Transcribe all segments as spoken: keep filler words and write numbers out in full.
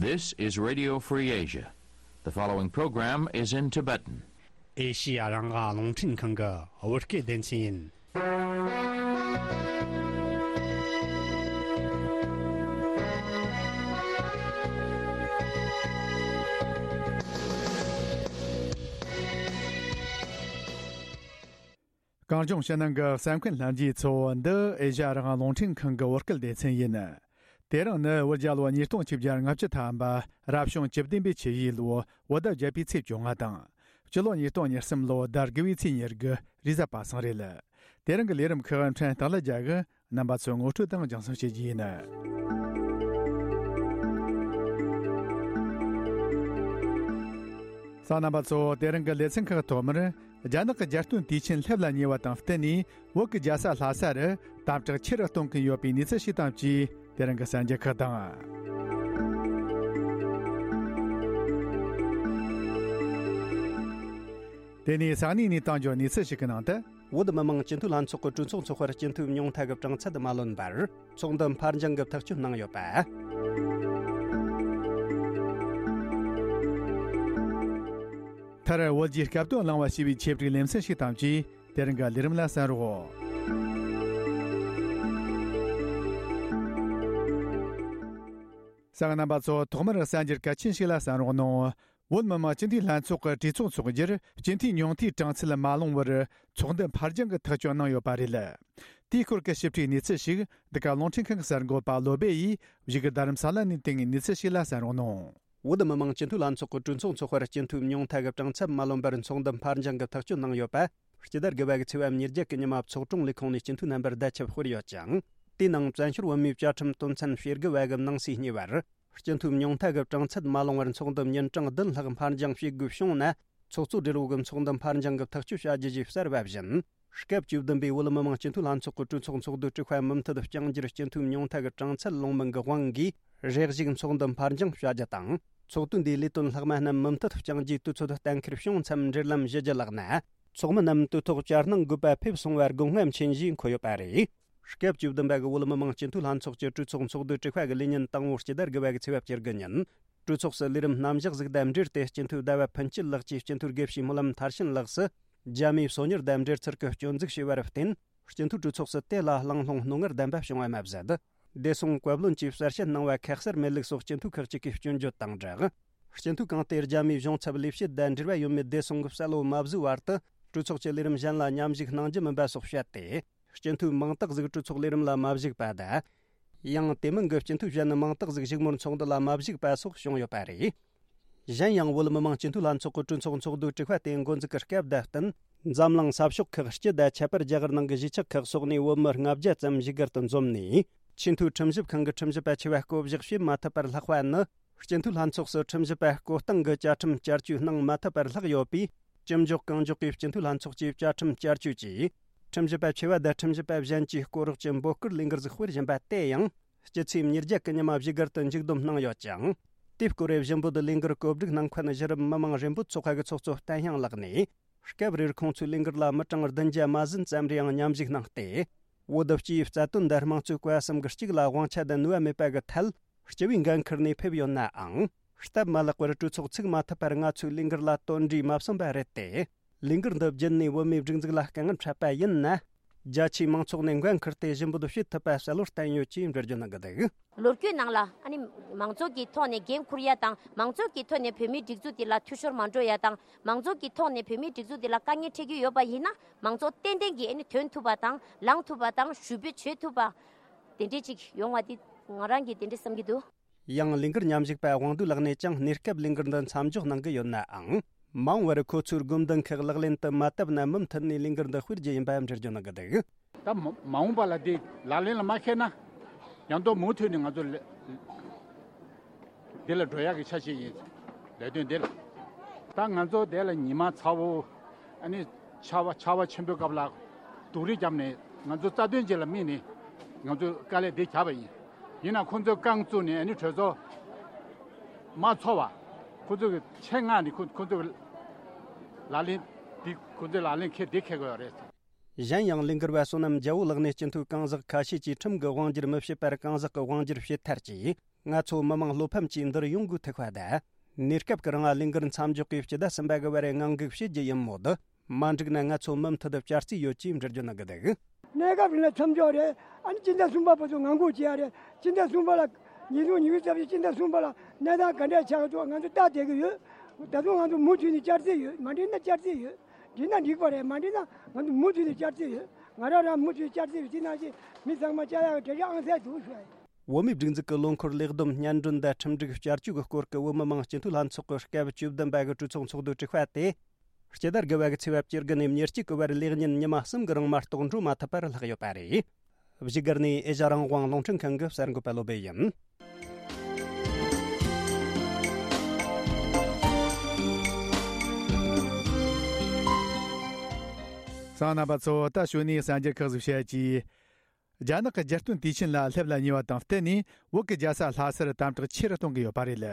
This is Radio Free Asia. The following program is in Tibetan. ཨེ་ཤི་ཡ་རང་དབང་རླུང་འཕྲིན་ཁང་གི་བོད་སྐད་སྡེ་ཚན་ཡིན། གངས་ལྗོངས་ཕྱི་ནང་གི་གསན་མཁན་ལྷན་རྒྱས་ཚོ། འདི་ཨེ་ཤ་ཡ་རང་དབང་རླུང་འཕྲིན་ཁང་གི་བོད་སྐད་སྡེ་ཚན་ཡིན། དེ་རིང་ནི་བོད་རྒྱལ་ལོ་ཉིས་སྟོང་ཆིག་བརྒྱ་ལྔ་བཅུ་ཐམ་པ། རབ་བྱུང་བཅུ་བདུན་པའི་ཆུ་ཡོས་ལོ་བོད་ཟླ་བརྒྱད་པའི་ཚེས་བཅོ་ལྔ་དང་། སྤྱི་ལོ་ཉིས་སྟོང་ཉེར་གསུམ་ལོ་ཟླ་དགུ་བའི་ཚེས་ཉེར་དགུ་རེས་གཟའ་པ་སངས་རེད། དེ་རིང་གི་ལས་རིམ་ཁག་ཕྲན་སྟག་ལ་རྒྱལ་གྱིས་རྣམ་པ་ཚོའི་ངོ་སྤྲོད་དང་སྦྱང་གསུང་བྱེད་རྒྱུ་ཡིན། གསན་མཁན་རྣམ་པ་ཚོ། དེ་རིང་གི་ལེ་ཚན་ཁག་ཐོག་མར། རྒྱ་ནག་གི་རྒྱལ་སྟོན་དུས་ཆེན་སླེབས་ལ་ཉེ་བ་དང་བསྟུན་ནས། བོད་ཀྱི་རྒྱལ་ས་ལྷ་ས་རུ་དམ་དྲག་ཆེ་རུ་གཏོང་གིན་ཡོད་པའི་གནས་ཚུལ་ཞིག་དང་བཅས། དེ་རིང་གི་གསར་འགྱུར་ཁག་དང་། དེ་ནས་ས་གནས་ནས་བཏང་རྒྱུ་གནས་ཚུལ་ཞིག་གི་ནང་དུ། བོད་མི་མང་སྤྱི་འཐུས་ལྷན་ཚོགས་ཀྱི་གྲོས་ཚོགས་འཚོགས་པར་སྤྱི་འཐུས་ཉུང་མཐའ་གི་གྲངས་ཚད་མ་ལོན་པར། ཚོགས་འདུ་ཕར་འགྱངས་ཀྱི་ཐག་གཅོད་གནང་ཡོད་པ། མཐར་བོད་ཀྱི་སྐབས་དོན་བླང་བ་ཞེས་པའི་ཆེད་བསྒྲིགས་ལེ་ཚན་ཞིག་དང་བཅས། དེ་རིང་གི་ལས་རིམ་ལ་གསན་རོགས། གསན་མཁན་རྣམ་པ་ཚོ། ཐོག་མར་གསར་འགྱུར་གལ་ཆེན་ཞིག་ལ་གསན་རོགས་གནང་། བོད་མི་མང་སྤྱི་འཐུས་ལྷན་ཚོགས་ཀྱི་གྲོས་ཚོགས་འཚོགས་རྒྱུར་སྤྱི་འཐུས་ཉུང་མཐའི་གྲངས་ཚད་མ་ལོངས་པར། ཚོགས་འདུ་ཕར་འགྱངས་ཀྱི་ཐག་གཅོད་གནང་ཡོད་པ་རེད། དེའི་སྐོར་གྱི་ཞིབ་ཕྲའི་གནས་ཚུལ་ཞིག་འདི་ག་རླུང་འཕྲིན་ཁང་གི་གསར་འགོད་པ་བློ་སྦེ་ཡིས་བཞུགས་སྒར་རྡ་རམ་ས་ལ་ནས་བཏང་བའི་གནས་ཚུལ་ཞིག་ལ་གསན་རོགས་གནང་། བོད་མི་མང་སྤྱི་འཐུས་ལྷན་ཚོགས་ཀྱི་གྲོས་ཚོགས་འཚོགས་པར་སྤྱི་འཐུས་ཉུང་མཐའ་གི་གྲངས་ཚད་མ་ལོན་པར་ཚོགས་འདུ་ཕར་འགྱངས་ཀྱི་ཐག་གཅོད་གནང་ཡོད་པ། སྤྱི་ཟླ་དགུ་པ་གི་ཚེས་པ་ཉེར་བརྒྱད་ཀྱི་ཉི་མ་ཚོགས་དྲུང་ལས་ཁུངས་ནས་སྤྱི་འཐུས་རྣམ་པར་བརྡ་ཁྱབ་སྤེལ་ཡོད་ཅིང་། དེའི་ནང་བཙན་བྱོལ་བོད་མིའི་བཅའ་ཁྲིམས་དོན་ཚན་ཞེ་དགུ་པ་གི་ནང་གསེས་གཉིས་པར། སྤྱི་འཐུས་ཉུང་མཐའ་གི་གྲངས་ཚད་མ་ལོངས་པར་ཚོགས་འདུ་ཉིན་གྲངས་བདུན་ལྷག་ཕར་འགྱངས་བྱེད་དགོས་བྱུང་ན། ཚོགས་གཙོ་སྦྲེལ་པོ་གི་ཚོགས་འདུ་ཕར་འགྱངས་ཀྱི་ཐག་གཅོད་བྱ་རྒྱུ་ཞེས་གསལ་བ་བཞིན། སྐབས་བཅུ་བདུན་པའི་བོད་མི་མང་སྤྱི་འཐུས་ལྷན་ཚོགས་ཀྱི་གྲོས་ཚོགས་ཚོགས་འདུའི་དྲུག་པ་མུ་མཐུད་བསྐྱང་རྒྱུར་སྤྱི་འཐུས་ཉུང་མཐའ་གི་གྲངས་ཚད་ལོངས་མིན་གྱི་དབང་གིས་རེ་ཞིག་ཚོགས་འདུ་ཕར་འགྱངས་བྱ་རྒྱུ་དང་། ཚོགས་དུས་འདིའི་ལས་དོན་ལྷག་མ་རྣམས་མུ་མཐུད་བསྐྱང་རྒྱུའི་དུས་ཚོད་གཏན་འཁེལ་བྱུང་མཚམས་འབྲེལ་ལམ་ཞུ་རྒྱུ་ལགས་ན། ཚོགས་མི་རྣམས་དུས་ཐོག་བཅར་གནང་དགོས་པ་ཕེབས་སོང་བར་དགོངས་རྔམ་ཆེན་ཞེས་འཁོད་ཡོད་པ་རེད། སྐབས་བཅུ་བདུན་པ་གི་བོད་མི་མང་སྤྱི་འཐུས་ལྷན་ཚོགས་ཀྱི་གྲོས་ཚོགས་ཚོགས་འདུའི་དྲུག་པ་གི་ལས་ཉིན་དང་པོ་སྤྱི་ཟླ་དགུ་པ་གི་ཚེས་པ་བཅུ་དགུ་ཉིན། གྲོས་ཚོགས་སུ་ལས་རིམ་རྣམ་གཞག་ཟིག་དང་འབྲེལ་ཏེ་སྤྱི་འཐུས་ཟླ་བ་ཕུན་སྐྱིད་ལགས་ཀྱིས་སྤྱི་འཐུས་དགེ་བཤེས་སྨོན་ལམ་མཐར་ཕྱིན་ལགས་སུ། རྒྱ་མིའི་སོ་ཉར་དང་འབྲེལ་ཚུལ་གྱི་སྐྱོན་འཛུགས་བྱས་པར་བརྟེན། སྤྱི་འཐུས་གྲོས་ཚོགས་སུ་དེ་ལ་གླེང་སློང་རྣོ་ངར་ལྡན་པ་བྱུང་བ་མ་ཟད། བདེ་སྲུང་བཀའ་བློན་གྱིས་གསལ་བཤད་གནང་བ་ཁ་གསལ་མེད་ལུགས་སོགས་སྤྱི་འཐུས་ཁག་ཅིག་གིས་སྐྱོན་བརྗོད་དང་སྦྲགས། སྤྱི་འཐུས་གང་དེ་རྒྱ་མིའི་གཞུང་ཚབ་ལས་བྱེད་དང་འབྲེལ་བ་ཡོད་མེད་བདེ་སྲུང་གི་གསལ་བོ་མ་བཟོས་བར་དུ། གྲོས་ཚོགས་ཀྱི་ལས་རིམ་གཞན་ལ་མཉམ་ཞུགས་གནང་རྒྱུ་མིན་པ་སོགས་བཤད་དེ། སྤྱི་འཐུས་མང་དག་ཟིག་གྲོས་ཚོགས་ལས་རིམ་ལ་མ་ཞུགས་པ་དང་། ཡང་དེ་མིན་གྱི་སྤྱི་འཐུས་གཞན་ནི་མང་དག་ཟིག་བཞུགས་མོལ་ཚོགས་འདུ་ལ་མ་ཞུགས་པ་སོགས་བྱུང་ཡོད་པ་རེད། གཞན་ཡང་བོད་མི་མང་སྤྱི་འཐུས་ལྷན་ཚོགས་ཀྱི་གྲོས་ཚོགས་ཚོགས་འདུའི་དྲུག་པ་དེ་འགོ་འཛུགས་ཀྱི་སྐབས་དང་བསྟུན། འཛམ་གླིང་ས་ཕྱོགས་ཁག་སྤྱི་དང་ཁྱད་པར་རྒྱ་གར་ནང་གི་གཞིས་ཆགས་ཁག་སོགས་ནས་བོད་མི་ལྔ་བརྒྱ་ཙམ་བཞུགས་སྒར་དུ་འཛོམས་ནས། ཆེས་མཐོའི་ཁྲིམས་ཞིབ་ཁང་གི་ཁྲིམས་ཞིབ་པ་ཆེ་བ་བསྐོ་གཞག་བྱེད་མ་ཐུབ་པར་ལྷག་པ་ནི། སྤྱི་འཐུས་ལྷན་ཚོགས་སུ་ཁྲིམས་ཞིབ་པ་བསྐོ་སྟངས་ཀྱི་བཅའ་ཁྲིམས་བསྐྱར་བཅོས་གནང་མ་ཐུབ་པར་ལྷག་ཡོད་པས། ཅི་མགྱོགས་གང་མགྱོགས་ཀྱིས་སྤྱི་འཐུས་ལྷན་ཚོགས་ཀྱི་བཅའ་ཁྲིམས་བསྐྱར་བཅོས་ཀྱིས། ཁྲིམས་ཞིབ་པ་ཆེ་བ་དང་ཁྲིམས་ཞིབ་པ་གཞན་གྱི་སྐོར་རོགས་ཀྱི་འབོད་སྐུལ་ལས་འགུལ་ཟིག་སྤེལ་བཞིན་པ་དེ་ཡང་། སྤྱི་ཚེས་ཉེར་བརྒྱད་ཀྱི་ཉི་མ་བཞུགས་སྒར་དུ་མཇུག་བསྡོམས་གནང་ཡོད་ཅིང་། དེའི་སྐོར་བཞི་འབོད་ལས་འགུལ་གོ་སྒྲིག་གནང་མཁན་གཞི་རིམ་མི་མང་རེ་འབོད་ཚོགས་པ་གི་ཚོགས་གཙོ་བསྟན་དབྱངས་ལགས་ནས། སྐབས་རེར་ཁོང་ཚོའི་ལས་འགུལ་ལ་མི་གྲངས་བདུན་བརྒྱ་མ་ཟིན་ཙམ་རེའང་མཉམ་ཞུགས་གནང་སྟེ། བོད་སྤྱིའི་རྩ་དོན་དང་དམངས་གཙོའི་བཀའ་གསུམ་གྱི་གཅིག་ལ་དབང་ཆ་དང་ནུས་པ་མེད་པ་གི་ཐད། སྤྱི་བའི་འགན་འཁུར་ནས་ཕེབས་ཡོད་ནའང་། སྟབས་མ་ལེགས་པར་གྲོས་ཚོགས་ཚུགས་མ་ཐུབ་པར་ང་ཚོའི་ལས་འགུལ་ལ་དོན་འབྲས་མ་སོན་པ་རེད་དེ། ལས་འགུལ་འདི་བརྒྱུད་ནས་བོད་མིའི་སྒྲིག་འཛུགས་ལ་དཀའ་ངལ་འཕྲད་པ་ཡིན་ན། རྒྱ་ཆེའི་མང་ཚོགས་ནས་འགན་འཁུར་ཏེ་ཞུ་འབོད་བྱེད་ཐུབ་པ་གསལ་བོར་བསྟན་ཡོད་ཅེས་འགྲེལ་བརྗོད་གནང་གི་འདུག། ལོ་རྒྱུས་ནང་ལ་ཨ་ནི་མང་ཚོགས་ཀྱི་ཐོག་ནས་འགན་འཁུར་ཡ་དང་། མང་ཚོགས་ཀྱི་ཐོག་ནས་བོད་མིའི་སྒྲིག་འཛུགས་དེ་ལ་འཐུས་ཤོར་མ་འགྲོ་ཡ་དང་། མང་ཚོགས་ཀྱི་ཐོག་ནས་བོད་མིའི་སྒྲིག་འཛུགས་དེ་ལ་དཀའ་ངལ་འཕྲད་ཀྱི་ཡོད་པ་ཡིན་ན། མང་ཚོགས་ཏན་ཏན་གྱིས་ཨ་ནི་ཐོན་ཐུབ་པ་དང་། ལངས་ཐུབ་པ་དང་། ཞུ་འབོད་བྱེད་ཐུབ་པ། དེ་འདྲས་ཅིག་ཡོང་བ་དེ་ང་རང་གིས་དེ་འདྲས་བསམ་གྱི་འདུག། ཡང་ལས་འགུལ་མཉམ་ཞུགས་པ་དབང་འདུས་ལགས་ནས་ཀྱང་གནས་སྐབས་ལས་འགུལ་འདི་མཚམས་འཇོག་གནང་གི་ཡོད་ནའང་། མ་འོངས་པར་ཁོ་ཚོའི་དགོས་འདུན་ཁག་ལག་ལེན་དུ་མ་བཏབ་ན་མུ་མཐུད་ནས་ལས་འགུལ་འདི་སྤེལ་རྒྱུ་ཡིན་པ་འགྲེལ་བརྗོད་གནང་གི་འདུག། ད་མ་མ་འོངས་པ་ལ་དེ་ལག་ལེན་ལ་མ་འཁེལ་ན། ཡང་དུ་མུ་མཐུད་ནས་ང་ཚོ་ལ་འདི་ལ་འགྲོ་ཡག་གི་འཆར་གཞི་ཡིན། ལས་དོན་འདི་ལ། ད་ང་ཚོ་དེ་ལ་ཉི་མ་ཚ་བོ། ཨ་ནི་ཆར་པ་ཆར་པ་ཆེན་པོའི་སྐབས་ལ་སྡུག་རུས་བརྒྱབ་ནས་ང་ཚོ་རྩ་དོན་ཅིག་ལ་དམིགས་ནས་ང་ཚོས་དཀའ་ལས་འདི་བརྒྱབ་པ་ཡིན། ཡིན་ན་ཁོང་ཚོས་རྐང་བཙུགས་ནས་ཨ་ནི་གྲོས་ཚོགས་མ་ཚོགས་པ། ཁོང་ཚོ་གི་ཆེད་མངགས་ནས་ཁོ་ཁོང་ཚོ་གི་ལག་ལེན་འདི་ཁོང་ཚོའི་ལག་ལེན་འཁེལ་འདི་འཁེལ་དགོས་པ་རེད། གཞན་ཡང་ལས་འགུལ་བ་བསོད་ནམས་རྒྱལ་པོ་ལགས་ནས་སྤྱི་འཐུས་གང་ཟག་ཁ་ཤས་ཀྱིས་ཁྲིམས་ཀྱི་དབང་སྒྱུར་མི་བྱེད་པར་གང་ཟག་གི་དབང་སྒྱུར་བྱེད་ཐལ་ཅེས། ང་ཚོ་མི་མང་བློ་ཕམ་གྱིས་འདིར་ཡོང་དགོས་ཐུག་པ་དང་། གནས་སྐབས་ཀྱི་རིང་ལས་འགུལ་མཚམས་འཇོག་གིས་སྤྱི་ཟླ་གསུམ་པ་གི་བར་ངང་སྒུག་བྱེད་རྒྱུ་ཡིན་མོད། མ་འགྲིག་ན་ང་ཚོ་མུ་མཐུད་བསྐྱར་རྩིས་ཡོད་ཅེས་འགྲེལ་བརྗོད་གནང་གི་འདུག། གནས་སྐབས་རིང་ལ་མཚམས་འཇོག་རེད། ཨ་ནི་སྤྱི་ཟླ་གསུམ་པ་བར་དུ་ངང་སྒུག་བྱེད་ཡ་རེད། སྤྱི་ཟླ་གསུམ་པ་ལ། ཉིས་སྟོང་ཉི་ཤུ་རྩ་བཞི་སྤྱི་ཟླ་གསུམ་པ་ལ་གནས་སྟངས་ག་འདྲ་ཆགས་འདུག་ང་ཚོ་ལྟ་བསྡད་ཀྱི་ཡོད། ད་དུང་ང་ཚོ་མུ་མཐུད་ནས་བསྐྱར་རྩིས་ཡོད། མ་འགྲིག་ན་བསྐྱར་རྩིས་ཡོད། འགྲིག་ན་འགྲིག་པ་རེད། མ་འགྲིག་ན་ང་ཚོ་མུ་མཐུད་ནས་བསྐྱར་རྩིས་ཡོད། ང་རང་རང་མུ་མཐུད་བསྐྱར་རྩིས་ཡོད། དེ་ནང་བཞིན་མི་ཚང་མ་བཅར་ཡག་གི་གྲལ་གཞི་ཨང་གསར་འདུག་ཞུ་ཡ་ཡིན། བོད་མིའི་སྒྲིག་འཛུགས་ཀྱི་ལོ་འཁོར་ལས་བསྡོམས་སྙན་སྒྲོན་དང་ཁྲིམས་སྒྲིག་བསྐྱར་བཅོས་ཀྱི་སྐོར་གྱི་བོད་མི་མང་སྤྱི་འཐུས་ལྷན་ཚོགས་ཀྱི་སྐབས་བཅུ་བདུན་པ་གི་གྲོས་ཚོགས་ཚོགས་འདུ་དྲུག་པ་དེ། སྤྱི་ཟླ་དགུ་བ་གི་ཚེས་པ་བཅུ་དགུ་ནས་ཉེར་གཅིག་གི་བར་ལས་ཉིན་ཉི་མ་གསུམ་གྱི་རིང་མ་གཏོགས་འགྲོ་མ་ཐུབ་པར་ལྷག་ཡོད་པ་རེད། བཞུགས་སྒར་ནས་ཨེ་ཤ་རང་དབང་རླུང་འཕྲིན་ཁང་གི་གསར་འགོད་པ་བློ་བྷེ་ཡིན། གསན་མཁན་རྣམ་པ་ཚོ། ད་གཞུག་ནས་གསར་འགྱུར་ཁག་ཟིག་བཤད་ཀྱིས། རྒྱ་ནག་གི་རྒྱལ་སྟོན་དུས་ཆེན་ལ་སླེབས་ལ་ཉེ་བ་དང་བསྟུན་ནས། བོད་ཀྱི་རྒྱལ་ས་ལྷ་སར་དམ་དྲག་ཆེ་རུ་གཏོང་གི་ཡོད་པ་རེད།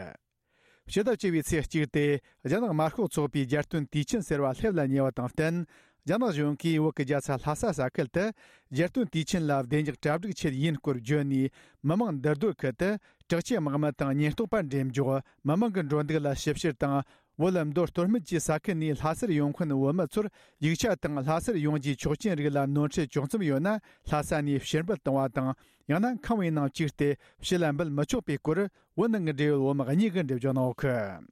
ཕྱི་ཟླ་བཅུ་བའི་ཚེས་གཅིག་སྟེ། རྒྱ་ནག་དམར་ཤོག་ཚོགས་པའི་རྒྱལ་སྟོན་དུས་ཆེན་ཟེར་བ་སླེབས་ལ་ཉེ་བ་དང་བསྟུན། རྒྱ་ནག་གཞུང་གིས་བོད་ཀྱི་རྒྱལ་ས་ལྷ་ས་ས་ཁུལ་དུ། རྒྱལ་སྟོན་དུས་ཆེན་ལ་བདེ་འཇགས་གྲ་སྒྲིག་ཆེད་ཡིན་སྐོར་བརྗོད་ནས། མི་མང་འདུ་སྡོད་ཁུལ་དུ། དྲག་ཆས་དམག་མི་དང་ཉེན་རྟོག་པ་འགྲེམས་འཇོག་མི་མང་གི་འགྲོ་འདུག་ལ་ཞིབ་བཤེར་དང་། བོད་ལ་མདོ་སྟོད་སྨད་ཀྱི་ས་ཁུལ་ནས་ལྷ་སར་ཡོང་མཁན་བོད་མི་ཚོར། ཡིག་ཆ་དང་ལྷ་སར་ཡོང་རྒྱུའི་ཆོག་མཆན་རིགས་ལ་ནོར་འཁྲུལ་བྱུང་མཚམས་ཡོད་ན། ལྷ་ས་ནས་ཕྱིར་འབུད་གཏོང་བ་དང་། ཡང་ན་ཁང་བའི་ནང་བཅུག་སྟེ་ཕྱི་ལ་འབུད་མི་ཆོག་པའི་སྐོར། བོད་ནང་གི་འབྲེལ་ཡོད་བོད་མི་གཉིས་ཀྱིས་འགྲེལ་བརྗོད་གནང་ཡོད་གི།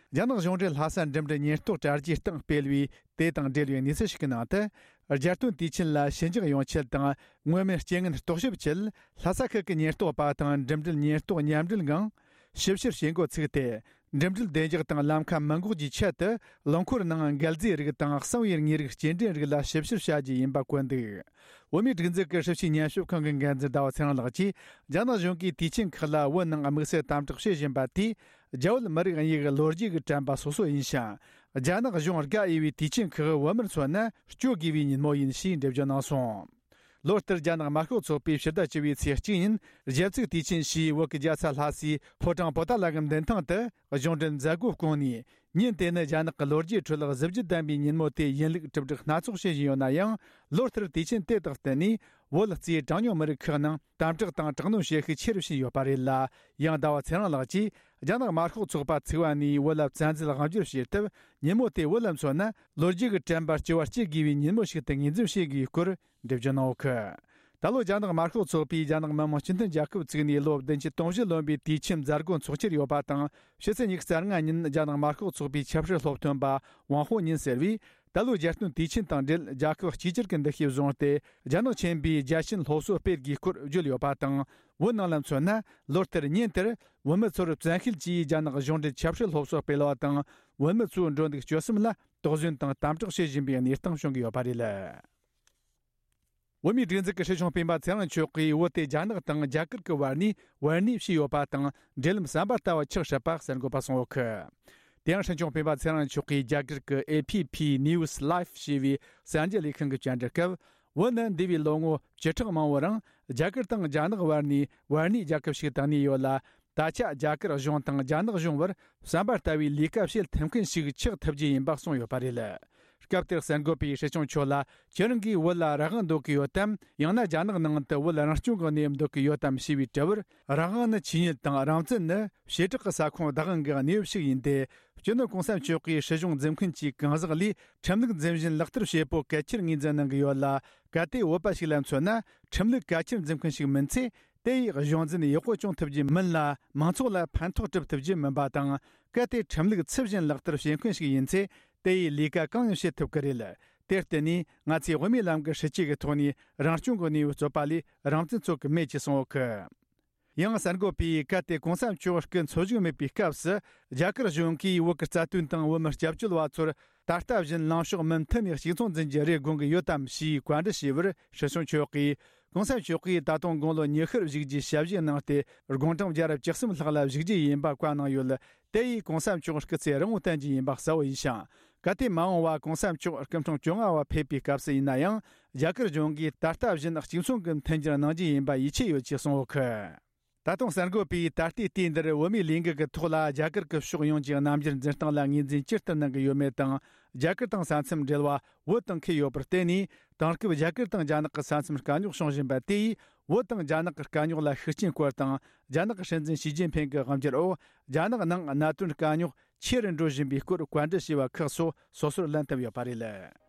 རྒྱ་ནག་གཞུང་འབྲེལ་ལྷ་ས་འགྲིམ་འགྲུལ་ཉེན་རྟོག་དྲ་རྒྱའི་སྟེང་སྤེལ་བའི་དེ་དང་འབྲེལ་བའི་གནས་ཚུལ་ཞིག་གི་ནང་དུ། རྒྱལ་སྟོན་དུས་ཆེན་ལ་ཞི་འཇགས་ཡོང་ཆེད་དང་། མངོན་མིན་རྐྱེན་ངན་རྟོག་ཞིབ་ཆེད། ལྷ་ས་ཁུལ་གྱི་ཉེན་རྟོག་པ་དང་འགྲིམ་འགྲུལ་ཉེན་རྟོག་མཉམ་འབྲེལ་ངང་ཞིབ་བཤེར་བྱེད་འགོ་ཚུགས་ཏེ། འགྲིམ་འགྲུལ་བདེ་འཇགས་དང་ལམ་ཁ་མི་འགོག་རྒྱུའི་ཆེད་དུ། རླངས་འཁོར་ནང་འགལ་རྫས་རིགས་དང་གསང་བའི་དངོས་རིགས་སྐྱེལ་འདྲེན་རིགས་ལ་ཞིབ་བཤེར་བྱ་རྒྱུ་ཡིན་པ་བཀོད་འདུག། བོད་མིའི་སྒྲིག་འཛུགས་ཀྱི་སྲིད་བྱུས་ཉམས་ཞིབ་ཁང་གི་འགན་འཛིན་ཟླ་བ་ཚེ་རིང་ལགས་ཀྱིས། རྒྱ་ནག་གཞུང་གིས་དུས་ཆེན་ཁག་ལ་བོད་ནང་དམིགས་བསལ་དམ་དྲག་བྱེད་བཞིན་པ་དེས། རྒྱ་བོད་མི་རིགས་གཉིས་ཀྱི་ལོ་རྒྱུས་ཀྱི་དྲན་པ་སོ་སོ་ཡིན་ཞིང་། རྒྱ་ནག་གཞུང་དགའ་འོས་པའི་དུས་ཆེན་ཁག་བོད་མིར་མཚོན་ན་སྤྱོད་དགོས་པའི་ཉིན་མོ་ཡིན་ཞེས་འགྲེལ་བརྗོད་གནང་སོང་། ལོ་ལྟར་རྒྱ་ནག་དམར་ཤོག་ཚོགས་པས་ཕྱི་ཟླ་བཅུ་བའི་ཚེས་གཅིག་ཉིན་གཞས་ཚིག་དུས་ཆེན་ཞེས་བོད་ཀྱི་རྒྱལ་ས་ལྷ་སའི་ཕོ་བྲང་པོ་ཏཱ་ལ་གི་མདུན་ཐང་དུ་གཞུང་འབྲེལ་མཛད་སྒོ་བསྐོངས་ནས། ཉིན་དེ་ནི་རྒྱ་ནག་གི་ལོ་རྒྱུས་ཁྲོད་གཟི་བརྗིད་ལྡན་པའི་ཉིན་མོ་དེ་ཡིན་ལུགས་གྲུབ་འབྲས་སྣ་ཚོགས་བྱེད་བཞིན་ཡོད་ན་ཡང་། ལོ་ལྟར་དུས་ཆེན་དེ་དང་བསྟུན་ནས། བོད་རྩིས་གྲངས་ཉུང་མི་རིགས་ཁག་ནང་དམ་དྲག་དང་དྲག་གནོན་བྱེད་ཤུགས་ཆེ་རུ་ཕྱིན་ཡོད་པ་རེད་ལ། ཡང་ཟླ་བ་ཚེ་རིང་ལགས་ཀྱིས། རྒྱ་ནག་དམར་ཤོག་ཚོགས་པ་ཚུགས་པ་ནས་བོད་ལ་བཙན་འཛུལ་དབང་བསྒྱུར་བྱས་སྟབས། ཉིན་མོ་དེ་བོད་ལ་མཚོན་ན། ལོ་རྒྱུས་ཀྱི་དྲན་པ་བསྐྱར་བ་སྐྱེ་དགོས་པའི་ཉིན་མོ་ཞིག་ཏུ་ངོས་འཛིན་བྱེད་དགོས་སྐོར་འགྲེལ་བརྗོད་གནང་ཡོད་གི། ད་ལོ་རྒྱ་ནག་དམར་ཤོག་ཚོགས་པས་རྒྱ་ནག་མི་དམངས་སྤྱི་མཐུན་རྒྱལ་ཁབ་བཙུགས་ནས་ལོ་བདུན་ཅུ་དོན་བཞི་ལོན་པའི་དུས་ཆེན་མཛད་སྒོ་འཚོགས་འཆར་ཡོད་པ་དང་། ཕྱི་ཚེས་ཉི་ཤུ་རྩ་ལྔ་ཉིན་རྒྱ་ནག་དམར་ཤོག་ཚོགས་པའི་ཆབ་སྲིད་སློབ་སྟོན་པ་ཝང་ཧོ་ཉིན་ཟེར་བས། ད་ལོའི་རྒྱལ་སྟོན་དུས་ཆེན་དང་འབྲེལ། རྒྱལ་ཁབ་གཅིག་གྱུར་གྱི་འདུ་ཤེས་བཟུང་སྟེ། རྒྱ་ནག་ཆེན་པོའི་རྒྱལ་ཆེན་སློབ་གསོ་སྤེལ་དགོས་སྐོར་བརྗོད་ཡོད་པ་དང་། བོད་ནང་ལ་མཚོན་ན། ལོ་ལྟར་ཉིན་དེར་བོད་མི་ཚོར་བཙན་ཤེད་ཀྱིས་རྒྱ་ནག་གཞུང་འབྲེལ་ཆབ་སྲིད་སློབ་གསོ་སྤེལ་བ་དང་། བོད་མི་ཚོའི་འགྲོ་འདུག་སྤྱོད་གསུམ་ལ་དོགས་ཟོན་དང་དམ་དྲག་བྱེད་བཞིན་པའི་གནས་སྟངས་བྱུང་གི་ཡོད་པ་རེད། བོད་མིའི་སྒྲིག་འཛུགས་ཀྱི་སྲིད་སྐྱོང་སྤེན་པ་ཚེ་རིང་མཆོག་གིས། བོད་དེ་རྒྱ་ནག་དང་རྒྱ་གར་གྱི་བར་ནས་བར་གནས་བྱས་ཡོད་པ་དང་། འབྲེལ་ལམ་ཟམ་པ་ལྟ་བུ་ཆགས་སྲིད་པ་གསར་འགོད་པ་གསུངས་ཡོད་གི། དེ་ཡང་སྲིད་སྐྱོང་སྤེན་པ་ཚེ་རིང་མཆོག་གིས་རྒྱ་གར་གྱི་ཨེ་ཕི་ཕི་ནིའུ་སི་ལའེབ་ཞེས་པའི་གསར་འགྱུར་ལས་ཁང་གི་བཅར་འདྲི་སྐབས། བོད་ནི་འདས་པའི་ལོ་ངོ་བཅུ་ཕྲག་མང་པོའི་རིང་རྒྱ་གར་དང་རྒྱ་ནག་བར་ནས་བར་གནས་རྒྱལ་ཁབ་ཞིག་ཏུ་གནས་ཡོད་ལ། ད་ཆ་རྒྱ་གར་གཞུང་དང་རྒྱ་ནག་གཞུང་བར་ཟམ་པ་ལྟ་བུའི་ལས་ཀ་བྱེད་ཐུབ་མཁན་ཞིག་ཆགས་ཐུབ་རྒྱུ་ཡིན་པ་གསུངས་ཡོད་པ་རེད། སྐབས་དེར་གསར་འགོད་པས་སྲིད་སྐྱོང་མཆོག་ལ། ཁྱེད་རང་གིས་བོད་ལ་རང་དབང་འདོད་ཀྱི་ཡོད་དམ། ཡང་ན་རྒྱ་ནག་ནང་དུ་བོད་རང་སྐྱོང་གི་གནས་བབ་འདོད་ཀྱི་ཡོད་དམ་ཞེས་པའི་དྲི་བར། རང་དབང་ནི་ཆོས་ཉིད་དང་། རང་བཙན་ནི་བྱེ་བྲག་གི་ས་ཁོངས་བདག་དབང་གི་གནས་བབ་ཞིག་ཡིན་ཏེ། སྤྱི་ནོར་གོང་ས་མཆོག་གིས་སྲིད་གཞུང་འཛིན་མཁན་གྱི་གང་ཟག་ལས་ཁྲིམས་ལུགས་འཛིན་བཞིན་ལག་བསྟར་བྱེད་པོ་གལ་ཆེར་ངོས་འཛིན་གནང་གི་ཡོད་ལ། གལ་ཏེ་བོད་པ་ཞིག་ལ་མཚོན་ན། ཁྲིམས་ལུགས་གལ་ཆེར་འཛིན་མཁན་ཞིག་མིན་ཚེ། དེ་ཡིས་གཞུང་འཛིན་ཡག་པོ་སྐྱོང་ཐུབ་རྒྱུ་མིན་ལ། མང་ཚོགས་ལ་ཕན་ཐོགས་སྒྲུབ་ཐུབ་རྒྱུ་མིན་པ་དང་། གལ་ཏེ་ཁྲིམས་ལུགས་ཚུལ་བཞིན་ལག་བསྟར་བྱེད་མཁན་ཞིག་ཡིན་ཚེ། དེ་ཡིས་ལས་ཀ་གང་ཡང་བྱེད་ཐུབ་ཀྱི་རེད། དེར་བརྟེན་ནས། ང་ཚོས་དབུ་མའི་ལམ་གྱི་སྲིད་བྱུས་ཀྱི་ཐོག་ནས་རང་སྐྱོང་གི་གནས་བབ་རྩོད་པ་ལས་རང་བཙན་རྩོད་ཀྱི་མེད་ཅེས་གསུངས་ཡོད་གི། ཡང་གསར་འགོད་པས། གལ་ཏེ་གོང་ས་མཆོག་སྐུ་འཚོ་བཞུགས་མེད་པའི་སྐབས་སུ། རྒྱ་གར་གཞུང་གིས་བོད་ཀྱི་རྩ་དོན་དང་བོད་མིར་སྐྱབས་བཅོལ་བ་ཚོར་ད་ལྟ་བཞིན་ལངས་ཕྱོགས་མུ་མཐུད་ནས་གཅིག་མཚུངས་འཛིན་རྒྱུ་རེ་དགོངས་ཀྱི་ཡོད་དམ་ཞེས་བཀའ་འདྲི་ཞུས་པར། སྲིད་སྐྱོང་མཆོག་གིས། གོང་ས་མཆོག་གིས་ད་དུང་དགུང་ལོ་ཉི་ཤུར་བཞུགས་རྒྱུའི་ཞལ་བཞེས་གནང་སྟེ། དགུང་གྲངས་བརྒྱ་ར་བཅུ་གསུམ་ལྷག་ལ་བཞུགས་རྒྱུ་ཡིན་པ་བཀའ་གནང་ཡོད། དེ་ཡིས་གོང་ས་མཆོག་སྐུ་ཚེ་རིང་བོ་བརྟན་རྒྱུ་ཡིན་པ་གསལ་བོ་ཡིན་ཞིང་། གལ་ཏེ་མ་འོངས་པ་གོང་ས་མཆོག་སྐུ་འཕྲེང་བཅོ་ལྔ་བ་ཕེབས་པའི་སྐབས་སུ་ཡིན་ན་ཡང་། རྒྱ་གར་གཞུང་གིས་ད་ལྟ་བཞིན་གཅིག་མཚུངས་ཀྱི་མཐུན་འགྱུར་གནང་རྒྱུ་ཡིན་པ་ཡིད་ཆེས་ཡོད་ཅེས་གསུངས་ཡོད་གི། ད་དུང་གསར་འགོད་པས། ད་ལྟའི་དུས་འདིར་བོད་མིའི་ལས་འགུལ་གྱི་ཐོག་ལ་རྒྱ་གར་གྱི་ཕྱོགས་ཡོངས་ཀྱི་རྣམ་འགྱུར་འཛིན་སྟངས་ལ་ངོས་འཛིན་ཇི་ལྟར་གནང་གི་ཡོད་མེད་དང་། རྒྱ་གར་དང་ས་མཚམས་འབྲེལ་བ་བོད་དང་འཁེལ་ཡོད་པར་བརྟེན་ནས། དེང་སྐབས་རྒྱ་གར་དང་རྒྱ་ནག་གི་ས་མཚམས་དཀའ་རྙོག་བྱུང་བཞིན་པ་དེ་ཡིས། བོད་དང་རྒྱ་ནག་གི་དཀའ་རྙོག་ལ་ཤུགས་རྐྱེན་སྐོར་དང་། རྒྱ་ནག་གི་སྲིད་འཛིན་ཞི་ཅིན་ཕིང་གི་དབང་སྒྱུར་འོག་རྒྱ་ནག་ནང་གནད་དོན་དཀའ་རྙོག་ཆེ་རུ་འགྲོ་བཞིན་པའི་སྐོར་བཀའ་འདྲི་ཞུས་པ་ཁག་སོགས་སོ་སོར་ལན་བཏབ་ཡོད་པ་རེད། གསན་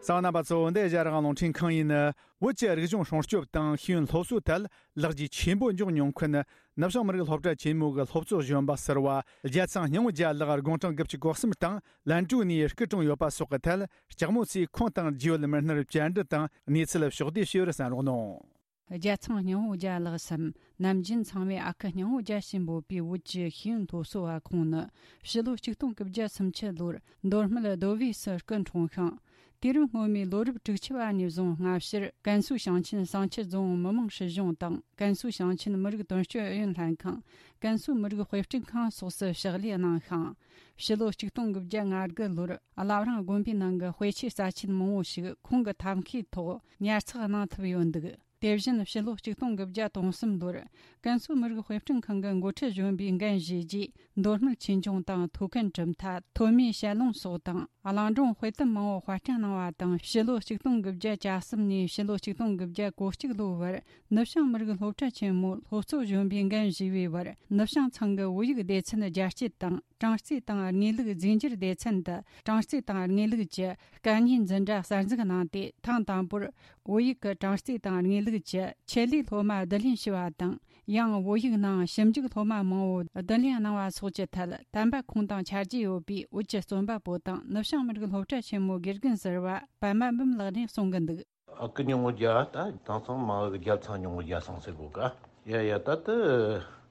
མཁན་རྣམ་པ་ཚོ། འདི་ཨེ་ཤ་ཡ་རང་དབང་རླུང་འཕྲིན་ཁང་ཡིན། བོད་ཀྱི་རིག་གཞུང་སྲུང་སྐྱོབ་དང་ཤེས་ཡོན་སློབ་གསོའི་ཐད་ལེགས་སྐྱེས་ཆེན་པོ་འབྱུང་མྱོང་མཁན། ནུབ་བྱང་མི་རིགས་སློབ་གྲྭ་ཆེན་མོའི་སློབ་གཙོ་གཞོན་པ་ཟུར་པ་རྒྱལ་ཚང་སྙིང་པོ་རྒྱལ་ལགས་དགུང་གྲངས་དགུ་བཅུ་གོ་གསུམ་དང་ལན་ཀྲུའུ་ནས་སྐུ་གྲོངས་ཡོད་པ་སོགས་ཀྱི་ཐད། ལྕགས་མོ་ཚོས་ཁོང་དང་རྒྱུས་ཡོད་མི་སྣར་བཅར་འདྲི་དང་གནས་ཚུལ་ཕྱོགས་བསྡུས་ཞུས་པར་གསན་རོགས་གནང་། རྒྱལ་ཚང་སྙིང་པོ་རྒྱལ་ལགས་སམ། ནམ་རྒྱུན་ཚང་མས་ཨ་ཁུ་སྙིང་པོ་རྒྱལ་ཞེས་འབོད་པའི་བོད་ཀྱི་ཤེས་ཡོན་སློབ་གསོ་བ་ཁོང་ནི། ཕྱི་ལོ་ཆིག་སྟོང་དགུ་བརྒྱ་སུམ་ཅུ་ལོར་མདོ་སྨད་རྡོ་སྦིས་སུ་སྐུ་འཁྲུངས་ཤིང་། དུས་རབས་སྔོན་མའི་ལོ་རབས་དྲུག་ཅུ་པ་ནས་བཟུང་སྔ་ཕྱིར་ཀན་སུའུ་ཞིང་ཆེན་བསང་ཆུ་རྫོང་མི་དམངས་སྲིད་གཞུང་དང་། ཀན་སུའུ་ཞིང་ཆེན་མི་རིགས་དོན་གཅོད་ཨུ་ཡོན་ལྷན་ཁང་། ཀན་སུའུ་མི་རིགས་དཔེ་སྐྲུན་ཁང་སོགས་སུ་ཕྱག་ལས་གནང་ཤིང་། ཕྱི་ལོ་ཆིག་སྟོང་དགུ་བརྒྱ་ང་དགུ་ལོར་བླ་བྲང་དགོན་པའི་ནང་གི་དཔེ་ཆའི་རྩ་ཆེན་མང་བོ་ཞིག་ཁོང་གི་ཐབས་མཁས་ཐོག་ཉར་ཚགས་གནང་ཐུབ་ཡོད་འདུག། དེ་བཞིན་ཕྱི་ལོ་ཆིག་སྟོང་དགུ་བརྒྱ་དོན་གསུམ་ལོར་ཀན་སུའུ་མི་རིགས་དཔེ་སྐྲུན་ཁང་གི་འགོ་ཁྲིད་གཞོན་པའི་འགན་བཞེས་རྗེས། མདོ་སྨད་ཆོས་འབྱུང་དང་ཐོད་རྒལ་གྲུབ་མཐའ། ཐོན་མིའི་ཞལ་ལུང་སོགས་དང་། གླིང་སྒྲུང་དཔེ་དེབ་མང་བོ་དཔར་སྐྲུན་གནང་བ་དང་། ཕྱི་ལོ་ཆིག་སྟོང་དགུ་བརྒྱ་གྱ་གསུམ་ནས་ཕྱི་ལོ་ཆིག་སྟོང་དགུ་བརྒྱ་གོ་གཅིག་ལོའི་བར་ནུབ་བྱང་མི་རིགས་སློབ་གྲྭ་ཆེན་མོའི་སློབ་གཙོ་གཞོན་པའི་འགན་བཞེས་པའི་བར། ནུབ་བྱང་ཚང་གི་བོད་ཡིག་སྡེ་ཚན་རྒྱ་སྐྱེད་དང་། གྲངས་རྩིས་དང་དངོས་ལུགས་རྫས་འགྱུར་སྡེ་ཚན་དུ་གྲངས་རྩིས་དང་དངོས་ལུགས་ཀྱི་དཀའ་ངལ་འཛིན་གྲྭ་གསར་འཛུགས་གནང་སྟེ། ཐེངས་དང་པོར་བོད་ཡིག་གི་གྲངས་རྩིས་དང་དངོས་ལུགས་ཀྱི་ཆེད་ལས་སློབ་མ་བསྡུ་ལེན་ཞུས་པ་དང་། ཡང་བོད་ཡིག་ནང་ཞིབ་འཇུག་སློབ་མ་མང་བོ་བསྡུ་ལེན་གནང་བ་སོགས་ཀྱི་ཐད་དམ་པ་ཁོང་དང་ཆ་རྒྱུས་ཡོད་པའི་བོད་ཀྱི་རྩོམ་པ་པོ་དང་ནུབ་བྱང་མི་རིགས་སློབ་གྲྭ་ཆེན་མོའི་དགེ་རྒན་ཟུར་པ་པདྨ་འབུམ་ལགས་ནས་གསུང་གི་འདུག། ཨ་ཁུ་སྙིང་པོ་རྒྱལ་ད་དེང་སང་མ་འོངས་ཀྱི་རྒྱལ་ཚང་སྙིང་པོ་རྒྱལ་སང་ཟེར་དགོས་ཀ། ཡ་ཡ་ད་ལྟ་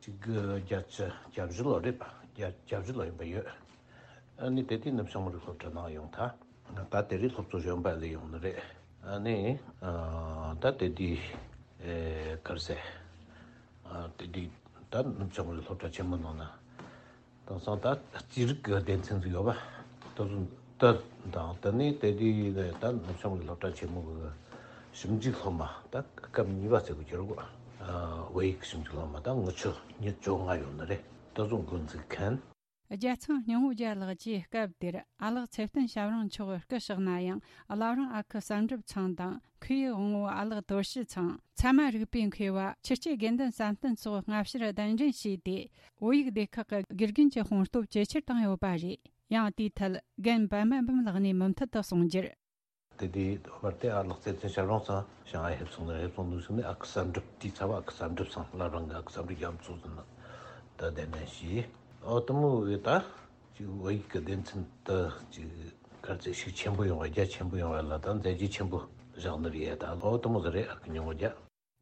གཅིག་དགུ་བརྒྱད་ཅུ་གྱ་བཞི་ལོ་རེད་པ། བརྒྱད་གྱ་བཞི་ལོ་ཡིན་པ་ཡོད། ཨ་ནི་དེ་དུས་ནུབ་བྱང་མི་རིགས་སློབ་གྲྭ་ནང་ཡོང་ཐལ། ད་དེ་རིང་སློབ་གཙོ་གཞོན་པ་ལས་ཡོང་ནི་རེད། ཨ་ནི་ཨ་ད་དེ་དུས་ཨེ་ག་རེ་ཟེར། ཨ་དེ་དུས་ད་ནུབ་བྱང་མི་རིགས་སློབ་གྲྭ་ཆེན་མོ་ནང་ན། དེང་སང་ད་རྩིས་རིག་གི་སྡེ་ཚན་ཟིག་ཡོད་པ། ད་དུང་ད་དང་ད་ནི་དེ་དུས་ད་ནུབ་བྱང་མི་རིགས་སློབ་གྲྭ་ཆེན་མོ་གི་ཞིབ་འཇུག་སློབ་མ་ད་སྐབས་གཉིས་པ་ཟེར་དགོས་ཀྱི་རེད་གོ། ཨ་བོད་ཡིག་ཞིབ་འཇུག་སློབ་མ་ད་ངུ་ཆོ་ཉི་བཅོ་ལྔ་ཡོད་ནི་རེད། ད་དུང་འགོ་འཛུགས་མཁན། རྒྱལ་ཚང་སྙིང་པོ་རྒྱལ་ལགས་ཀྱིས་སྐབས་དེར་ཨ་ལགས་ཚེ་བརྟན་ཞབས་དྲུང་མཆོག་སྐུ་གཤེགས་ན་ཡང་། བླ་བྲང་ཨ་ཁུ་བསམ་གྲུབ་ཚང་དང་། མཁས་དབང་པོ་ཨ་ལགས་དོར་ཞི་ཚང་། ཚད་མ་རིག་པའི་མཁས་པ་ཆོས་སྐྱེས་དགེ་འདུན་བསམ་གཏན་སོགས་སྔ་ཕྱིར་གདན་འདྲེན་བྱས་ཏེ། བོད་ཡིག་སྡེ་ཁག་གི་དགེ་རྒན་གྱི་དཔུང་སྟོབས་ཇེ་ཆེར་བཏང་ཡོད་པ་རེད། ཡང་དེའི་ཐད་རྒན་པདྨ་འབུམ་ལགས་ནས་མུ་མཐུད་དུ་གསུང་རྒྱུར། དེ་དུས་བར་དེ་ཨ་ལགས་ཚེ་བརྟན་ཞབས་དྲུང་ཚང་ཞང་ཨ་ཕེབས་སོང་ནས་ཕེབས་སོང་འདུག་ཟེར་ནས། ཨ་ཁུ་བསམ་གྲུབ་དེའི་ཚབ་ཨ་ཁུ་བསམ་གྲུབ་ཚང་། བླ་བྲང་གི་ཨ་ཁུ་བསམ་གྲུབ་རྒྱ་མཚོ་ཟེར་ན་ད་གདན་འདྲེན་བྱས། ཨོ་དེ་མོ་གི་ད་ཅིག་བོད་ཡིག་གི་སྡེ་ཚན་དུ་ཅིག་ག་རེ་ཟེར། ཤུགས་ཆེན་པོ་ཡོང་བ། རྒྱ་ཆེན་པོ་ཡོང་བ་ལ་ད་མཛད་རྗེས་ཆེན་པོ་བཞག་ནི་རེད་ད། ཨོ་དེ་མོ་ཟིག་རེད། ཨ་ཁུ་སྙིང་པོ་རྒྱལ།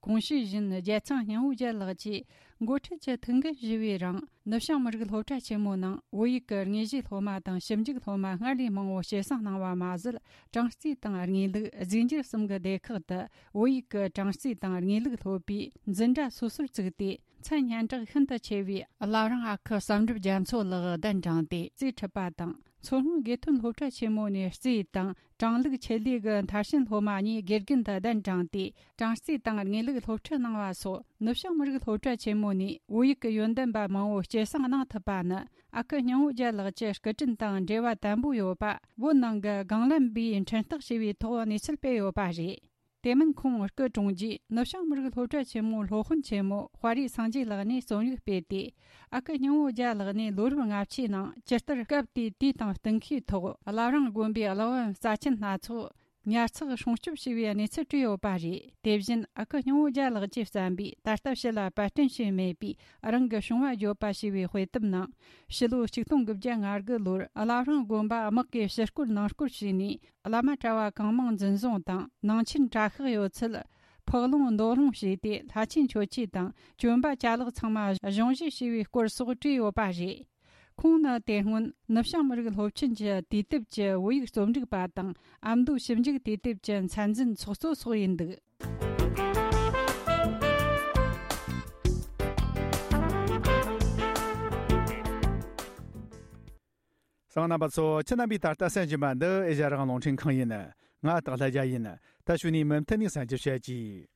གོང་ཞུས་བཞིན་རྒྱལ་ཚང་སྙིང་པོ་རྒྱལ་ལགས་ཀྱིས་འགོ་ཁྲིད་ཀྱི་ཐུགས་འགན་བཞེས་པའི་རིང་། ནུབ་བྱང་མི་རིགས་སློབ་གྲྭ་ཆེན་མོ་ནང་བོད་ཡིག་གི་དངོས་གཞིའི་སློབ་མ་དང་ཞིབ་འཇུག་སློབ་མ་སྔར་ལས་མང་བོ་སྐྱེད་སྲིང་གནང་བ་མ་ཟད། གྲངས་རྩིས་དང་དངོས་ལུགས། རྫས་འགྱུར་གསུམ་གྱི་སྡེ་ཁག་ཏུ་བོད་ཡིག་གི་གྲངས་རྩིས་དང་དངོས་ལུགས་སློབ་པའི་འཛིན་གྲྭ་སོ་སོར་བཙུགས་ཏེ། མཚན་སྙན་གྲགས་ཤིན་ཏུ་ཆེ་བའི་བླ་བྲང་ཨ་ཁུ་བསམ་གྲུབ་རྒྱ་མཚོ་ལགས་གདན་དྲངས་ཏེ་རྩིས་ཁྲིད་པ་དང་། མཚོ་སྔོན་དགེ་ཐོན་སློབ་གྲྭ་ཆེན་མོ་ནས་རྩིས་དང་། གྲངས་ལུགས་ཆེད་ལས་ཀྱི་མཐར་ཕྱིན་སློབ་མ་གཉིས་དགེ་རྒན་དུ་གདན་དྲངས་ཏེ། གྲངས་རྩིས་དང་དངོས་ལུགས་སློབ་ཁྲིད་གནང་བ་སོགས། ནུབ་བྱང་མི་རིགས་སློབ་གྲྭ་ཆེན་མོ་ནས་བོད་ཡིག་གི་ཡོན་ཏན་པ་མང་བོ་སྐྱེད་སྲིང་གནང་ཐུབ་པ་ནི། ཨ་ཁུ་སྙིང་པོ་རྒྱལ་ལགས་ཀྱི་སྐུ་དྲིན་དང་འབྲེལ་བ་དམ་པོ་ཡོད་པ། བོད་ནང་གི་སྒང་ལམ་པས་འཕྲིན་བཏགས་བྱས་པའི་ཐོག་གནས་ཚུལ་སྤེལ་ཡོད་པ་རེད། དེ་མིན་ཁོང་སྐུ་གྲོངས་རྗེས། ནུབ་བྱང་མི་རིགས་སློབ་གྲྭ་ཆེན་མོའི་སློབ་དཔོན་ཆེན་མོ་དཔའ་རིས་སངས་རྒྱས་ལགས་ནས་རྩོམ་ཡིག་སྤེལ་ཏེ། ཨ་ཁུ་སྙིང་པོ་རྒྱལ་ལགས་ནས་ལོ་རབས་ལྔ་བཅུའི་ནང་ཇི་ལྟར་སྐབས་དེའི་དུས་དང་གཏན་འཁེལ་ཐོག་བླ་བྲང་དགོན་པའི་གླེགས་བམ་རྩ་ཆེན་སྣ་ཚོགས་ཉར་ཚགས་སྲུང་སྐྱོབ་བྱས་པའི་གནས་ཚུལ་བྲིས་ཡོད་པ་རེད། དེ་བཞིན་ཨ་ཁུ་སྙིང་པོ་རྒྱལ་ལགས་ཀྱིས་བརྩམས་པའི་ད་ལྟ་ཕྱི་ལ་པར་སྐྲུན་བྱས་མེད་པའི་རང་གི་བྱུང་བ་བརྗོད་པ་ཞེས་པའི་དཔེ་དེབ་ནང་། ཕྱི་ལོ་ཆིག་སྟོང་དགུ་བརྒྱ་ང་དགུ་ལོར་བླ་བྲང་དགོན་པ་དམག་གིས་ཕྱིར་སྐོར་ནང་སྐོར་བྱས་ནས། བླ་མ་གྲྭ་བ་གང་མང་འཛིན་བཟུང་དང་། ནང་ཆེན་གྲྭ་ཤག་ཡོད་ཚད་ཕུག་ལོང་འདོགས་ལོང་བྱས་ཏེ། ལྷ་ཆེན་མཆོད་ཆས་དང་གྱོན་པ་ཅ་ལག་ཚང་མ་གཞུང་བཞེས་བྱས་པའི་སྐོར་སོགས་བྲིས་ཡོད་པ་རེད། ཁོང་ནི་དེ་སྔོན་ནུབ་བྱང་མི་རིགས་སློབ་ཆེན་གྱི་དུས་དེབ་ཀྱི་བོད་ཡིག་རྩོམ་སྒྲིག་པ་དང་། ཨ་མདོའི་ཞིབ་འཇུག་དུས་དེབ་ཀྱི་མཚན་འཛིན་ཚོགས་གཙོ་སོགས་ཡིན་འདུག། གསན་མཁན་རྣམ་པ་ཚོ། ཁྱེད་རྣམ་པས་ད་ལྟ་གསན་བཞིན་པ་འདི་ཨེ་ཤ་ཡ་རང་དབང་རླུང་འཕྲིན་ཁང་ཡིན། ང་སྟག་ལྷ་རྒྱལ་ཡིན། ད་གཞུག་ནས་མུ་མཐུད་ནས་གསན་རྒྱུ་བྱེད་ཀྱིས།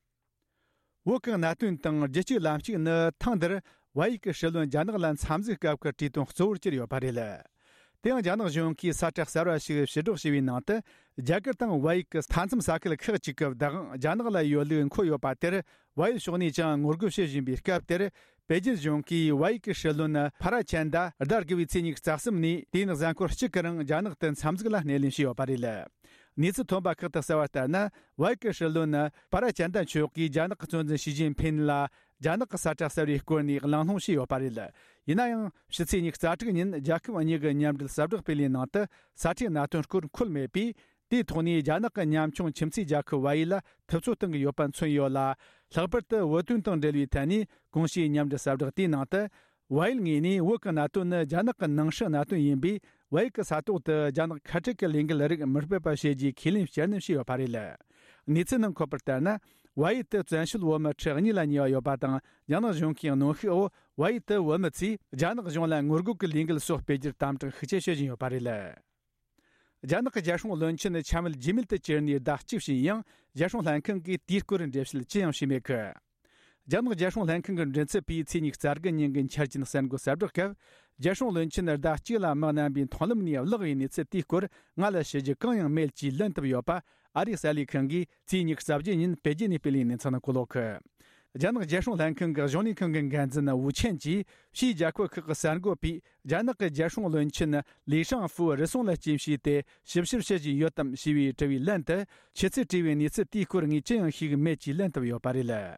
བོད་ཀྱི་གནད་དོན་དང་རྒྱུད་གཅིག་ལམ་གཅིག་ནི་ཐེངས་འདིར་བལ་ཡུལ་གྱི་སྲིད་བློན་རྒྱ་ནག་ལ་འཚམས་གཟིགས་སྐབས་ཀྱི་གྲོས་དོན་གཙོ་བོར་གྱུར་ཡོད་པ་རེད། དེ་ཡང་རྒྱ་ནག་གཞུང་གིས་ས་ཁྲ་གསར་བ་ཞིག་ཕྱིར་སྒྲོག་བྱས་པའི་ནང་དུ། རྒྱ་གར་དང་བལ་ཡུལ་གྱི་མཐའ་མཚམས་ས་ཁུལ་ཁག་ཅིག་གི་བདག་དབང་རྒྱ་ནག་ལ་ཡོད་ལུགས་འཁོད་ཡོད་པ་དེར། བལ་ཡུལ་ཕྱོགས་ནས་ཀྱང་ངོ་རྒོལ་བྱེད་བཞིན་པའི་སྐབས་དེར། པེ་ཅིན་གཞུང་གིས་བལ་ཡུལ་གྱི་སྲིད་བློན་ཕ་ར་ཅན་ད་ཟླ་དགུ་བའི་ཚེས་ཉི་ཤུ་རྩ་གསུམ་ནས་དེ་ཡིན་གཟའ་འཁོར་གཅིག་གི་རིང་རྒྱ་ནག་ཏུ་འཚམས་གཟིགས་ལ་སྣེ་ལེན་བྱས་ཡོད་པ་རེད། གནས་ཚུལ་ཐོན་པ་ཁག་ཏུ་གསལ་བ་ལྟར་ན། བལ་ཡུལ་གྱི་སྲིད་བློན་ཕ་ར་ཅན་ད་མཆོག་གིས་རྒྱ་ནག་གི་གཙོ་འཛིན་ཞི་ཅིན་ཕིན་ལ་རྒྱ་ནག་གི་ས་ཁྲ་གསར་བའི་སྐོར་ནས་གླེང་སློང་བྱས་ཡོད་པ་རེད། ཡིན་ན་ཡང་ཕྱི་ཚེས་ཉི་ཤུ་རྩ་དྲུག་ཉིན་རྒྱལ་ཁབ་གཉིས་ཀྱི་མཉམ་འབྲེལ་གསལ་བསྒྲགས་སྤེལ་བའི་ནང་དུ་ས་ཁྲའི་གནད་དོན་སྐོར་འཁོད་མེད་པས། དེའི་ཐོག་ནས་རྒྱ་ནག་གི་ཉམ་ཆུང་ཁྱིམ་མཚེས་རྒྱལ་ཁབ་བལ་ཡུལ་ལ་ཐུབ་ཚོད་གཏོང་གི་ཡོད་པ་མཚོན་ཡོད་ལ། ལྷག་པར་དུ་བོད་དོན་དང་འབྲེལ་བའི་ཐད་ནས་གོང་ཞུས་མཉམ་འབྲེལ་གསལ་བསྒྲགས་དེའི་ནང་དུ། བལ་ཡུལ་ངོས་ནས་བོད་ཀྱི་གནད་དོན་ནི་རྒྱ་ནག་གི་ནང་སྲིད་གནད་དོན་ཡིན་པས། བལ་ཡུལ་གྱི་ས་ཐོག་ཏུ་རྒྱ་ནག་ཁ་བྲལ་གྱི་ལས་འགུལ་རིགས་མི་སྤེལ་པ་བྱེད་རྒྱུའི་ཁས་ལེན་བསྐྱར་ནན་བྱས་ཡོད་པ་རེད། གནས་ཚུལ་ནང་འཁོད་པར་ལྟར་ན། བལ་ཡུལ་དུ་བཙན་བྱོལ་བོད་མི་ཁྲི་གཉིས་ལ་ཉེ་བ་ཡོད་པ་དང་། རྒྱ་ནག་གཞུང་གིས་གནོན་ཤུགས་འོག་བལ་ཡུལ་དུ་བོད་མི་ཚོས་རྒྱ་ནག་གཞུང་ལ་ངོ་རྒོལ་གྱི་ལས་འགུལ་སོགས་སྤེལ་རྒྱུར་དམ་དྲག་ཤུགས་ཆེ་བྱེད་བཞིན་ཡོད་པ་རེད། རྒྱ་ནག་གི་རྒྱལ་སྲུང་བློན་ཆེན་འཆམ་མཐུན་རྗེས་མེད་དུ་གྱུར་ནས་ཟླ་གཅིག་ཕྱིན་ཡང་། རྒྱལ་སྲུང་ལྷན་ཁང་གིས་དེའི་སྐོར་འགྲེལ་བཤད་ཅི་ཡང་བྱས་མེད་གི། རྒྱ་ནག་རྒྱལ་སྲུང་ལྷན་ཁང་གི་མགྲིན་ཚབ་པས་ཚེས་ཉི་ཤུ་རྩ་དགུ་ཉིན་གྱི་འཆར་ཅན་གསར་འགོད་གསལ་བསྒྲགས་སྐབས། རྒྱལ་སྲུང་བློན་ཆེན་ཟླ་གཅིག་ལ་མི་རྣམ་པའི་མཐོང་ལམ་ནས་བརླག་པའི་གནས་ཚུལ་དེའི་སྐོར་ང་ལ་ཞུ་རྒྱུ་གང་ཡང་མེད་ཅེས་ལན་བཏབ་ཡོད་པ། ཨ་རིའི་གསར་ལས་ཁང་གིས་ཚེས་ཉི་ཤུ་རྩ་བརྒྱད་ཉིན་པེ་ཅིན་ནས་སྤེལ་བའི་གནས་ཚུལ་ནང་བཀོད་ཡོད་གི། རྒྱ་ནག་རྒྱལ་སྲུང་ལྷན་ཁང་གི་གཞུང་ལས་ཁང་གི་འགན་འཛིན་ཝུ་ཆན་གྱིས། ཕྱིའི་རྒྱལ་ཁབ་ཁག་གི་གསར་འགོད་པས་རྒྱ་ནག་གི་རྒྱལ་སྲུང་བློན་ཆེན་ལི་ཧྲང་ཧྥུའུ་རུལ་སུངས་ལ་རྐྱེན་བྱས་ཏེ་ཞིབ་བཤེར་བྱེད་བཞིན་ཡོད་དམ་ཞེས་པའི་དྲི་བའི་ལན་དུ། ཁྱེད་ཚོས་དྲིས་པའི་གནས་ཚུལ་དེའི་སྐོར་ངས་ཅི་ཡང་ཤེས་ཀྱི་མེད་ཅེས་ལན་བཏབ་ཡོད་པ་རེད།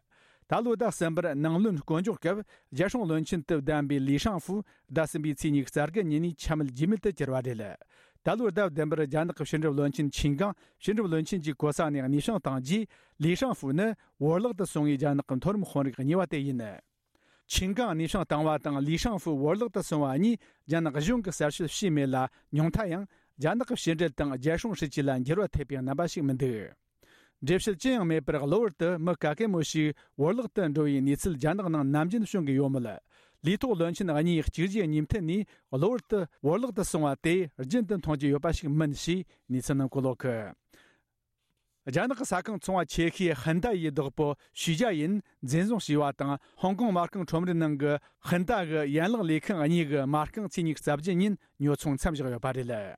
ད་ལོའི་ཟླ་གསུམ་པར་ནང་བློན་བསྐོ་འཇོག་སྐབས་རྒྱལ་སྲུང་བློན་ཆེན་དུ་བདམས་པའི་ལི་ཧྲང་ཧྥུའུ་ཟླ་གསུམ་པའི་ཚེས་ཉི་ཤུ་རྩ་དགུ་ཉིན་ནས་འཆམ་མཐུན་རྗེས་མེད་དུ་གྱུར་བ་རེད། ད་ལོའི་ཟླ་བདུན་པར་རྒྱ་ནག་གི་ཕྱི་འབྲེལ་བློན་ཆེན་ཆིན་ཀང་ཕྱི་འབྲེལ་བློན་ཆེན་གྱི་གོ་ས་ནས་གནས་དབྱུང་བཏང་རྗེས། ལི་ཧྲང་ཧྥུའུ་ནི་བོར་བརླག་ཏུ་སོང་བའི་རྒྱ་ནག་གི་མཐོ་རིམ་དཔོན་རིགས་གཉིས་པ་དེ་ཡིན། ཆིན་ཀང་གནས་དབྱུང་བཏང་བ་དང་ལི་ཧྲང་ཧྥུའུ་བོར་བརླག་ཏུ་སོང་བ་གཉིས་རྒྱ་ནག་གཞུང་གིས་གསལ་བཤད་བྱས་མེད་ལ། ཉུང་མཐའ་ཡང་རྒྱ་ནག་གི་ཕྱི་འབྲེལ་དང་རྒྱལ་སྲུང་སྲིད་ཇུས་ལ་འགྱུར་བ་ཐེབས་པའི་རྣམ་པ་ཞིག་མི་འདུག་འགྲེལ་བཤད་ཅི་ཡང་མེད་པར་གློ་བུར་དུ་མི་ག་གེ་མོ་ཞིག་བོར་བརླག་ཏུ་འགྲོ་བའི་གནས་ཚུལ་རྒྱ་ནག་ནང་ནམ་རྒྱུན་བྱུང་གི་ཡོད་མོད། ལས་ཐོག་བློན་ཆེན་གཉིས་གཅིག་རྗེས་གཉིས་མཐུད་ནས་གློ་བུར་དུ་བོར་བརླག་ཏུ་སོང་བ་དེ་རྒྱུན་དུ་མཐོང་རྒྱུ་ཡོད་པ་ཞིག་མིན་ཞེས་གནས་ཚུལ་ནང་བཀོད་ཡོད་གི། རྒྱ་ནག་གི་ས་ཁང་ཚོང་བ་ཆེ་ཤོས་ཧིན་ད་ཡི་བདག་པོ་ཞུས་ཅཱ་ཡིན་འཛིན་བཟུང་བྱས་པ་དང་། ཧོང་ཀོང་མ་རྐང་ཁྲོམ་རའི་ནང་གི་ཧིན་ད་གི་ཡན་ལག་ལས་ཁང་གཉིས་ཀྱི་མ་རྐང་ཚེས་ཉི་ཤུ་རྩ་བརྒྱད་ཉིན་ཉོ་ཚོང་མཚམས་བཞག་ཡོད་པ་རེད།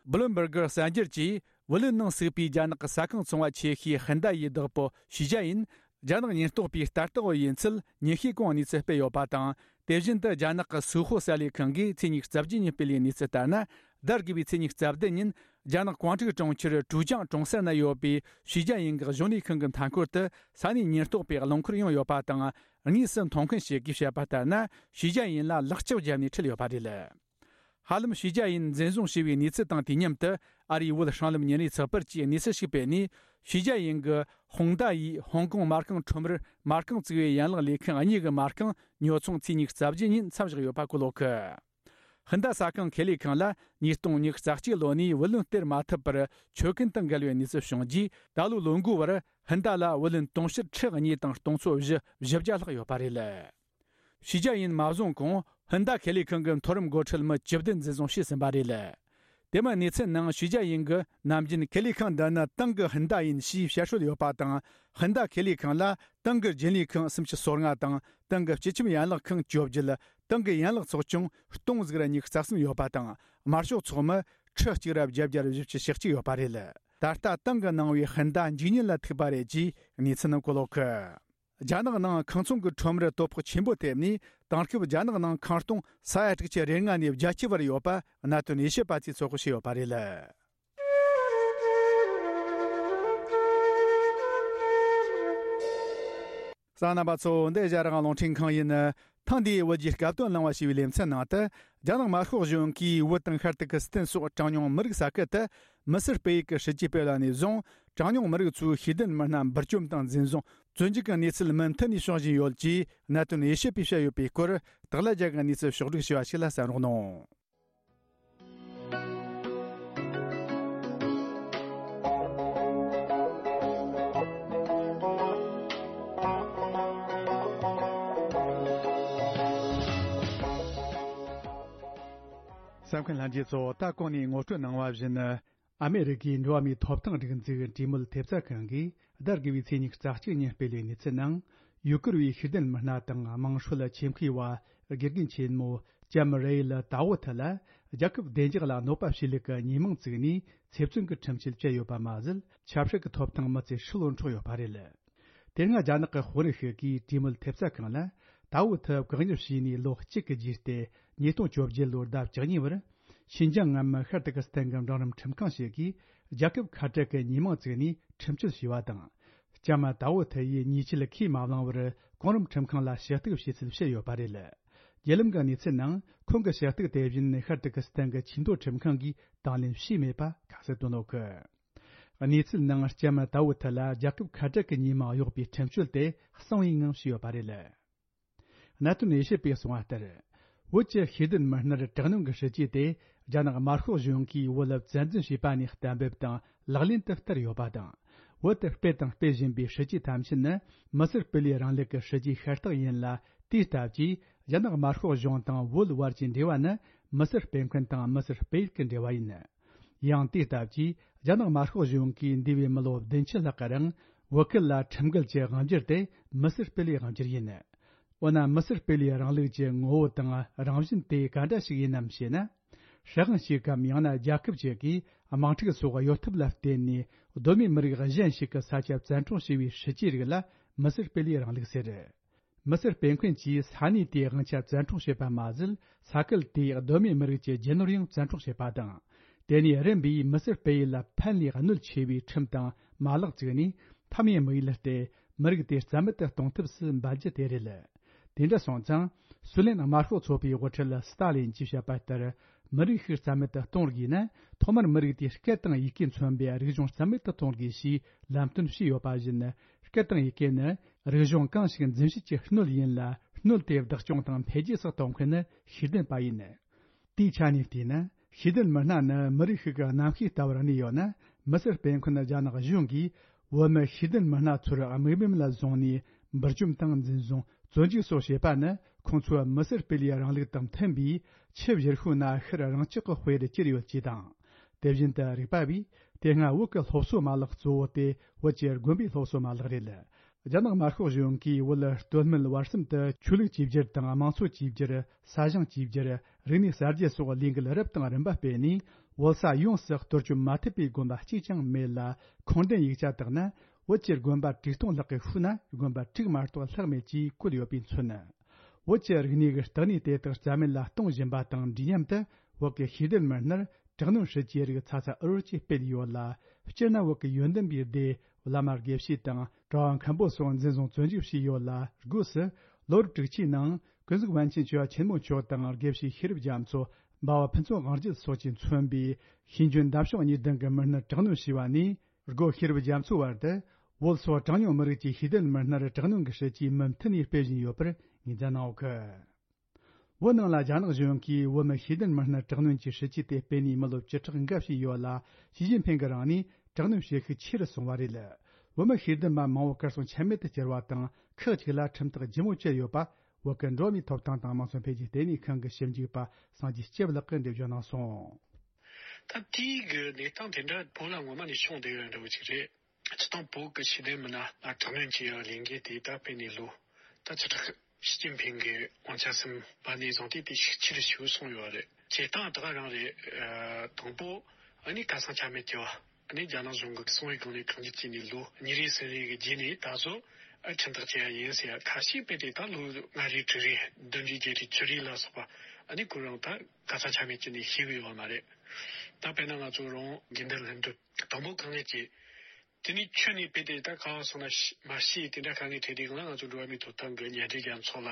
བྷི་ལུམ་བྷར་གི་གསར་འགྱུར་གྱིས། བུ་ལོན་ནང་ཟུག་པའི་རྒྱ་ནག་གི་ས་ཁང་ཚོང་བ་ཆེ་ཤོས་ཧིན་ད་ཡི་བདག་པོ་ཞུས་ཅཱ་ཡིན། རྒྱ་ནག་ཉེན་རྟོག་པའི་ལྟ་རྟོག་འོག་ཡིན་ཚུལ་ཉིན་ཤས་གོང་གནས་ཚུལ་སྤེལ་ཡོད་པ་དང་། དེ་བཞིན་དུ་རྒྱ་ནག་གི་སུའུ་ཧོ་གསར་ལས་ཁང་གིས་ཚེས་ཉི་ཤུ་རྩ་བརྒྱད་ཉིན་སྤེལ་བའི་གནས་ཚུལ་ལྟར་ན། ཟླ་དགུ་བའི་ཚེས་ཉི་ཤུ་རྩ་བདུན་ཉིན། རྒྱ་ནག་ཀོང་ཀྲིག་གྲོང་ཁྱེར་ཀྲུའུ་ཅང་གྲོང་གསར་ན་ཡོད་པའི་ཞུས་ཅཱ་ཡིན་གྱི་གཞུང་ལས་ཁང་གི་མཐའ་འཁོར་དུ་ས་གནས་ཉེན་རྟོག་པས་རླངས་འཁོར་ཡོང་ཡོད་པ་དང་། དངོས་སུ་མཐོང་མཁན་ཞིག་གིས་བཤད་པ་ལྟར་ན། ཞུས་ཅཱ་ཡིན་ལ་ལག་ལྕགས་བརྒྱབ་ནས་ཁྲིད་ཡོད་པ་རེད། ཧ་ལམ་ཞུས་ཅཱ་ཡིན་འཛིན་བཟུང་བྱས་པའི་གནས་ཚུལ་དང་དུས་མཉམ་དུ། ཨ་རིའི་བོད་སྲང་ལམ་ཉིན་རེའི་ཚགས་པར་གྱིས་གནས་ཚུལ་ཞིག་སྤེལ་ནས། ཞུས་ཅཱ་ཡིན་གྱི་ཧོང་ཏཱ་ཡིས་ཧོང་ཀོང་མ་རྐང་ཁྲོམ་རར་མ་རྐང་བཙུགས་པའི་ཡན་ལག་ལས་ཁང་གཉིས་ཀྱི་མ་རྐང་ཉོ་ཚོང་ཚེས་ཉི་ཤུ་རྩ་བརྒྱད་ཉིན་མཚམས་བཞག་ཡོད་པ་བཀོད་ཡོད་གི། ཧིན་ད་ས་ཁང་ཁེ་ལས་ཁང་ལ་ཉིས་སྟོང་ཉི་ཤུ་རྩ་གཅིག་ལོ་ནས་བུ་ལོན་སྟེར་མ་ཐུབ་པར་ཆོད་གན་དང་འགལ་བའི་གནས་ཚུལ་བྱུང་རྗེས། ད་ལོའི་ལོ་འགོའི་བར་ཧིན་ད་ལ་བུ་ལོན་དུང་ཕྱུར་ཁྲི་གཉིས་དང་སྟོང་ཚོ་བཞི་བཞི་བརྒྱ་ལྷག་ཡོད་པ་རེད། ཞུས་ཅཱ་ཡིན་མ་བཟུང་གོང་ཧིན་ད་ཁེ་ལས་ཁང་གི་མཐོ་རིམ་འགོ་ཁྲིད་མི་བཅུ་བདུན་འཛིན་བཟུང་བྱས་ཟིན་པ་རེད། དེ་མིན་གནས་ཚུལ་ནང་ཞུས་ཅཱ་ཡིན་གྱིས་ནམ་རྒྱུན་ཁེ་ལས་ཁང་འདི་ནི་ཏང་གི་ཧིན་ད་ཡིན་ཞེས་བཤད་སྲོལ་ཡོད་པ་དང་། ཧིན་ད་ཁེ་ལས་ཁང་ལ་ཏང་གི་རྒྱུན་ལས་ཁང་སུམ་ཅུ་སོ་ལྔ་དང་། ཏང་གི་སྤྱི་ཁྱབ་ཡན་ལག་ཁང་བཅོ་བརྒྱད། ཏང་གི་ཡན་ལག་ཚོགས་ཆུང་སྟོང་ཟིག་ར་ཉི་ཤུ་རྩ་གསུམ་ཡོད་པ་དང་། དམར་ཤོག་ཚོགས་མི་ཁྲི་གཅིག་ར་བརྒྱད་བརྒྱ་ར་བཞི་བཅུ་ཞེ་གཅིག་ཡོད་པ་རེད། ད་ལྟ་ཏང་གིས་གནང་བའི་ཧིན་ད་འཇིག་ཉེན་ལ་ཐུག་པ་རེད་ཅེས་གནས་ཚུལ་ནང་བཀོད་ཡོད་གི། རྒྱ་ནག་ནང་ཁང་ཚོང་གི་ཁྲོམ་རར་དོ་ཕོག་ཆེན་པོ་ཐེབས་ནས། དེང་སྐབས་རྒྱ་ནག་ནང་ཁང་སྟོང་ས་ཡ་དྲུག་ཅུ་རེ་ལྔ་ནས་བརྒྱད་ཅུ་བར་ཡོད་པ་གནད་དོན་དབྱེ་ཞིབ་པ་ཚོས་ཚོད་དཔག་བྱས་ཡོད་པ་རེད། གསན་མཁན་རྣམ་པ་ཚོ། འདི་ཨེ་ཤ་ཡ་རང་དབང་རླུང་འཕྲིན་ཁང་ཡིན། ཐེངས་འདིའི་བོད་ཀྱི་སྐབས་དོན་གླེང་བ་ཞེས་པའི་ལེ་ཚན་ནང་དུ། རྒྱ་ནག་དམར་ཤོག་གཞུང་གིས་བོད་དང་ཤར་ཏུར་ཀི་སི་ཐན་སོགས་གྲངས་ཉུང་མི་རིགས་ས་ཁུལ་དུ་མི་སེར་སྤེལ་ཡུལ་གྱི་སྲིད་ཇུས་སྤེལ་བ་ནས་བཟུང་། གྲངས་ཉུང་མི་རིགས་ཚོའི་ཤེས་ལྡན་མི་སྣ་འབུར་བཅོམ་དང་འཛིན་བཟུང་བཙོན་འཇུག་གི་གནས་ཚུལ་མུ་མཐུད་ནས་བྱུང་བཞིན་ཡོད་ཅེས་གནད་དོན་དབྱེ་ཞིབ་པས་བཤད་ཡོད་པའི་སྐོར། སྟག་ལྷ་རྒྱལ་གྱི་གནས་ཚུལ་ཕྱོགས་བསྒྲིགས་བྱས་པ་ཞིག་ལ་གསན་རོགས་གནང་། གསན་མཁན་ལྷན་རྒྱས་ཚོ། ད་གོང་ནས་ངོ་སྤྲོད་གནང་བ་བཞིན། ཨ་མེ་རི་ཀའི་འགྲོ་བ་མིའི་ཐོབ་ཐང་སྒྲིག་འཛུགས་གྲོས་མོལ་ཐེབས་རྩ་ཁང་གིས་ཟླ་དགུ་བའི་ཚེས་ཉི་ཤུ་རྩ་གཅིག་ཉིན་སྤེལ་བའི་གནས་ཚུལ་ནང་། ཡུ་གུར་བའི་ཤེས་ལྡན་མི་སྣ་དང་དམངས་ཁྲོད་ཆེད་མཁས་པ་དགེ་རྒན་ཆེན་མོ་ལྕམ་རེ་ཡལ་ཏཱ་ཝུ་ཐི་ལ་རྒྱལ་ཁབ་བདེ་འཇགས་ལ་གནོད་པ་བྱེད་ལུགས་ཀྱི་ཉེས་མིང་བཙུགས་ནས་ཚེ་བཙོན་གྱི་ཁྲིམས་ཆད་བཅད་ཡོད་པ་མ་ཟད། ཆབ་སྲིད་ཀྱི་ཐོབ་ཐང་མི་ཚེ་ཧྲིལ་བོར་འཕྲོག་ཡོད་པ་རེད། དེ་སྔ་རྒྱ་ནག་གི་དཔོན་རིགས་ཤིག་གིས་གྲོས་མོལ་ཐེབས་རྩ་ཁང་ལ་ཏཱ་ཝུ་ཐི་བཀག་ཉར་བྱས་ནས་ལོ་གཅིག་གི་རྗེས་ཏེ་ཉིས་སྟོང་བཅོ་བརྒྱད་ལོའི་ཟླ་བཅུ་གཉིས་པར། ཤིན་ཅང་ངམ་ཤར་ཏུར་ཀི་སི་ཐན་གྱི་འབྲིང་རིམ་ཁྲིམས་ཁང་ཞིག་གིས་རྒྱལ་ཁབ་ཁ་བྲལ་གྱི་ཉེས་མིང་བཙུགས་ནས་ཁྲིམས་གཅོད་བྱས་པ་དང་། ལྕམ་ཏཱ་ཝུ་ཐི་ཡིས་ཉེས་ཆད་ཁས་མ་བླངས་པར་གོང་རིམ་ཁྲིམས་ཁང་ལ་ཞུ་གཏུག་བྱས་ཚུལ་བཤད་ཡོད་པ་རེད། བརྒྱུད་ལམ་གྱི་གནས་ཚུལ་ནང་ཁོང་གི་ཞུ་གཏུག་དེ་བཞིན་ཤར་ཏུར་ཀི་སི་ཐན་གྱི་ཆེས་མཐོའི་ཁྲིམས་ཁང་གིས་དང་ལེན་བྱས་མེད་པ་ཁ་གསལ་བཏོན་ཡོད་གི། གནས་ཚུལ་ནང་ལྕམ་ཏཱ་ཝུ་ཐི་ལ་རྒྱལ་ཁབ་ཁ་བྲལ་གྱི་ཉེས་མིང་གཡོགས་པའི་ཁྲིམས་གཅོད་དེ་གསང་བའི་ངང་བྱས་ཡོད་པ་རེད། གནད་དོན་དབྱེ་ཞིབ་པས་གསུངས་པ་ལྟར། བོད་ཀྱི་ཤེས་ལྡན་མི་སྣར་དྲག་གནོན་གྱི་སྲིད་ཇུས་དེ་རྒྱ་ནག་དམར་ཤོག་གཞུང་གིས་བོད་ལ་བཙན་འཛུལ་བྱས་པ་ནས་གཏན་འབེབས་དང་ལག་ལེན་དུ་བསྟར་ཡོད་པ་དང་། བོད་དུ་སྤེལ་དང་སྤེལ་བཞིན་པའི་སྲིད་ཇུས་ཐམས་ཅད་ནི་མི་སེར་སྤེལ་ཡུལ་རིང་ལུགས་ཀྱི་སྲིད་ཇུས་ཤ་སྟག་ཡིན་ལ། དེའི་སྟབས་ཀྱིས་རྒྱ་ནག་དམར་ཤོག་གཞུང་དང་བོད་བར་གྱི་འབྲེལ་བ་ནི་མི་སེར་སྤེལ་མཁན་དང་མི་སེར་སྤེལ་ཡུལ་གྱི་འབྲེལ་བ་ཡིན། ཡང་དེའི་སྟབས་ཀྱིས་རྒྱ་ནག་དམར་ཤོག་གཞུང་གིས་འདས་པའི་མི་ལོ་བདུན་ཅུ་ལྷག་གི་རིང་བོད་ཁུལ་ལ་ཁྲིམས་འགལ་གྱི་དབང་སྒྱུར་དེ་མི་སེར་སྤེལ་ཡུལ་དབང་སྒྱུར་ཡིན། འོ་ན་མི་སེར་སྤེལ་ཡུལ་རིང་ལུགས་ཀྱི་ངོ་བོ་དང་རང་བཞིན་དེ་ག་འདྲ་ཞིག་ཡིན་ནམ་ཞེ་ན། སྲིད་དབང་ཞིག་གམ་ཡང་ན་རྒྱལ་ཁབ་ཅིག་གིས་དམག་འཁྲུག་སོགས་གཡོ་ཐབས་ལ་བརྟེན་ནས་གདོད་མའི་མི་རིགས་གཞན་ཞིག་གི་ས་ཆ་བཙན་འཕྲོག་བྱས་པའི་སྲིད་ཇུས་རིགས་ལ་མི་སེར་སྤེལ་ཡུལ་རིང་ལུགས་ཟེར། མི་སེར་སྤེལ་མཁན་གྱིས་ས་གནས་དེའི་དབང་ཆ་བཙན་འཕྲོག་བྱེད་པ་མ་ཟད། ས་ཁུལ་དེའི་གདོད་མའི་མི་རིགས་ཀྱི་རྒྱུ་ནོར་ཡང་བཙན་འཕྲོག་བྱེད་པ་དང་། དེ་ནས་རིམ་པས་མི་སེར་སྤེལ་ཡུལ་ལ་ཕན་ལས་གནོད་ཆེ་བའི་ཁྲིམས་དང་མ་ལག་བཙུགས་ནས་ཕམ་ཡུལ་དམིགས་ཡུལ་སྟེ། མི་རིགས་དེ་རྩ་མེད་དུ་གཏོང་ཐབས་སུ་འབད་རྒྱུ་དེ་རེད། དེ་འདྲ་སོང་ཙང་། སུའུ་ལེན་དམར་ཤོག་ཚོགས་པའི་དབུ་ཁྲིད་སི་ཏཱ་ལིན་གྱིས་བཤད་པ་ལྟར། མི་རིགས་ཤིག་རྩ་མེད་དུ་གཏོང་དགོས་ན། ཐོག་མར་མི་རིགས་དེའི་སྐད་དང་ཡི་གེ་མཚོན་པའི་རིག་གཞུང་རྩ་མེད་དུ་གཏོང་དགོས་ཞེས་ལམ་སྟོན་བྱས་ཡོད་པ་བཞིན། སྐད་དང་ཡི་གེ་ནི་རིག་གཞུང་གང་ཞིག་འཛིན་བྱེད་ཀྱི་སྣོད་ཡིན་ལ། སྣོད་དེ་བདག་སྐྱོང་དང་འཕེལ་རྒྱས་སུ་གཏོང་མཁན་ནི་ཤེས་ལྡན་པ་ཡིན། དེའི་ཆ་ནས་བལྟས་ན། ཤེས་ལྡན་མི་སྣ་ནི་མི་རིགས་ཤིག་གི་རྣམ་ཤེས་ལྟ་བུར་གནས་ཡོད་ན། མི་སེར་སྤེལ་མཁན་རྒྱ་ནག་གཞུང་གིས་བོད་མི་ཤེས་ལྡན་མི་སྣ་ཚོར་དམིགས་འབེན་ལ་བཟུང་ནས་འབུར་འཇོམས་དང་འཛིན་བཟུང་། བཙོན་འཇུག་སོགས་བྱེད་པ་ནི། ཁོང་ཚོའི་མི་སེར་སྤེལ་ཡུལ་རིང་ལུགས་དང་མཐུན་པའི་ཆབ་བཞི་ཤོག་ན་ཤར་རང་ཆག་གི་དཔེ་རུ་གྱུར་ཡོད་ཅེས་དང་། དེ་བཞིན་དུ་རིག་པ་བས། དེ་སྔ་བོད་ཀྱི་སློབ་གསོ་མ་ལག་གཙོ་བོ་དེ་བོད་ཀྱི་དགོན་པའི་སློབ་གསོ་མ་ལག་རེད། རྒྱ་ནག་དམར་ཤོག་གཞུང་གིས་བོད་སྟོད་སྨད་བར་གསུམ་དུ་ཆོས་ལུགས་གཅིག་གྱུར་དང་དམངས་གཙོ་གཅིག་གྱུར། ས་ཞིང་གཅིག་གྱུར། རིག་གནས་གསར་བརྗེ་སོགས་ལས་འགུལ་རབ་དང་རིམ་པ་སྤེལ་ནས། བོད་ས་ཡོངས་སུ་གཏོར་སྐྱོན་མ་ཐེབས་པའི་དགོན་པ་གཅིག་ཀྱང་མེད་ལ། ཁུངས་ལྡན་ཡིག་ཆ་དག་ན། བོད་ཀྱི་དགོན་པ་དྲུག་སྟོང་ལྷག་གི་ཤུལ་ན་དགོན་པ་དྲུག་མ་གཏོགས་ལྷག་མེད་ཅེས་བཀོད་ཡོད་པས་མཚོན། བོད་ཀྱི་རིག་གནས་ཀྱི་བརྟག་གནས་དེ་དག་རྩ་མེད་ལ་གཏོང་བཞིན་པ་དང་འདྲིས་མཉམ་དུ། བོད་ཀྱི་ཤེས་ལྡན་མི་སྣར་དྲག་གནོན་སྲིད་ཇུས་རིགས་ཚ་ཚ་འུར་འུར་གྱིས་སྤེལ་ཡོད་ལ། སྤྱིར་ན་བོད་ཀྱི་ཡོན་ཏན་པའི་སྡེ་བླ་མ་དགེ་བཤེས་དང་གྲྭ་བ་མཁན་པོ་སོགས་འཛིན་བཟུང་བཙོན་འཇུག་བྱས་ཡོད་ལ། སྒོས་སུ་ལོ་རབས་དྲུག་ཅུའི་ནང་ཀུན་གཟིགས་པཎ་ཆེན་ཆོས་པ་ཆེན་མོ་མཆོག་དང་དགེ་བཤེས་ཤེས་རབ་རྒྱ་མཚོ། འབའ་བ་ཕུན་ཚོགས་དབང་རྒྱལ་སོགས་ཀྱིས་མཚོན་པའི་ཤེས་འཇོན་འདམ་ཤོག་གཉིས་ལྡན་གྱི་མི་སྣར་དྲག་གནོན་བྱས་པ་ནས། སྒོ་ཤེས་རབ་རྒྱ་མཚོའི་བར་དུ། བོད་སོགས་གྲངས་ཉུང་མི་རིགས་ཀྱི་ཤེས་ལྡན་མི་སྣར་དྲག་གནོན་གྱི་སྲིད་ཇུས་མུ་མཐུད་ནས་སྤེལ་བཞིན་ཡོད་པར་ངོས་འཛིན་གནང་ཡོད་གི། བོད་ནང་ལ་རྒྱ་ནག་གཞུང་གིས་བོད་མི་ཤེས་ལྡན་མི་སྣར་དྲག་གནོན་གྱི་སྲིད་ཇུས་དེ་སྤེལ་ནས་མི་ལོ་བཅུ་ཕྲག་འགའ་ཞིག་ཡོད་ལ། ཞི་ཅིན་ཕིང་གི་རིང་ནས་དྲག་གནོན་བྱེད་ཤུགས་ཆེ་རུ་སོང་བ་རེད། བོད་མི་ཤེས་ལྡན་པ་མང་བོ་གར་སོང་ཆ་མེད་དུ་གྱུར་བ་དང་། ཁག་ཅིག་ལ་ཁྲིམས་ཐག་ལྗིད་མོ་བཅད་ཡོད་པ། བོད་ཀྱི་འགྲོ་བ་མིའི་ཐོབ་ཐང་དང་དམངས་སྲོལ་འཕེལ་རྒྱས་ལྟེ་གནས་ཁང་གི་ཞིབ་འཇུག་པ་སངས་རྒྱས་སྐྱབས་ལགས་ཀྱིས་འགྲེལ་བརྗོད་གནང་སོང་། ད་དེའི་གི་གནས་སྟངས་དེ་འདྲ་བོད་ལ་ངོ་མ་ནས་བྱུང་བསྡད་ཡོད་འདྲ་བོ་ཅིག་རེད། སྤྱིར་བཏང་བོད་ཀྱི་ཤེས་ལྡན་མི་སྣ་ལ་དྲག་གནོན་བྱེད་ཡག་ལས་འགུལ་དེ་ད་སྤེལ་ནས་ལོ་ད་བཅུ་ཕྲག་ཞི་ཅིན་ཕིང་གི་དབང་ཆ་ཟིན་པ་ནས་བཟུང་སྟེ་དེ་ཤུགས་ཆེ་རུ་ཞེ་པོ་སོང་ཡོད་རེད། བྱེད་སྟངས་ད་ག་རང་རེད། ཨ། དང་པོ་ཨ་ནི་ཁ་སང་ཆ་མེད་ཀྱི་བ། ཨ་ནི་རྒྱ་ནག་གཞུང་གི་གསང་བའི་སྒང་ནས་བཀག་ཉར་བྱས་ནས་ལོ་གཉིས་རེ་གསུམ་རེ་གི་རྗེས་ནས་ད་གཟོད་ཨ་ཁྲིམས་ཐག་བཅད་ཡ་ཡིན་ཟེར་ཡ། ཁ་ཤས་དཔེ་དེ་ད་ལོ་ལྔ་རེ་དྲུག་རེ་བདུན་རེ་བརྒྱད་རེ་བཅུ་རེ་ལ་སོགས་པ། ཨ་ནི་ཁོ་རང་ད་ཁ་སང་ཆ་མེད་བྱས་ནས་ཤེས་གི་ཡོད་མ་རེད། ད་དཔེར་ན་ང་ཚོ་རང་དགེ་འདུན་ལྷན་གྲོས་དང་པོ་བཀག་ཉར་བྱས། དེ་ནས་ཁྱོན་ནས་དཔེ་དེ་ད་ག་བ་སོང་ན་ཤི་མ་ཤེས། དེ་འདྲ་དཀའ་ངལ་འཕྲད་དུས་སྒང་ལ་ང་ཚོ་འགྲོ་བ་མིའི་ཐོབ་ཐང་གི་མཉམ་འབྲེལ་རྒྱལ་ཚོགས་ལ་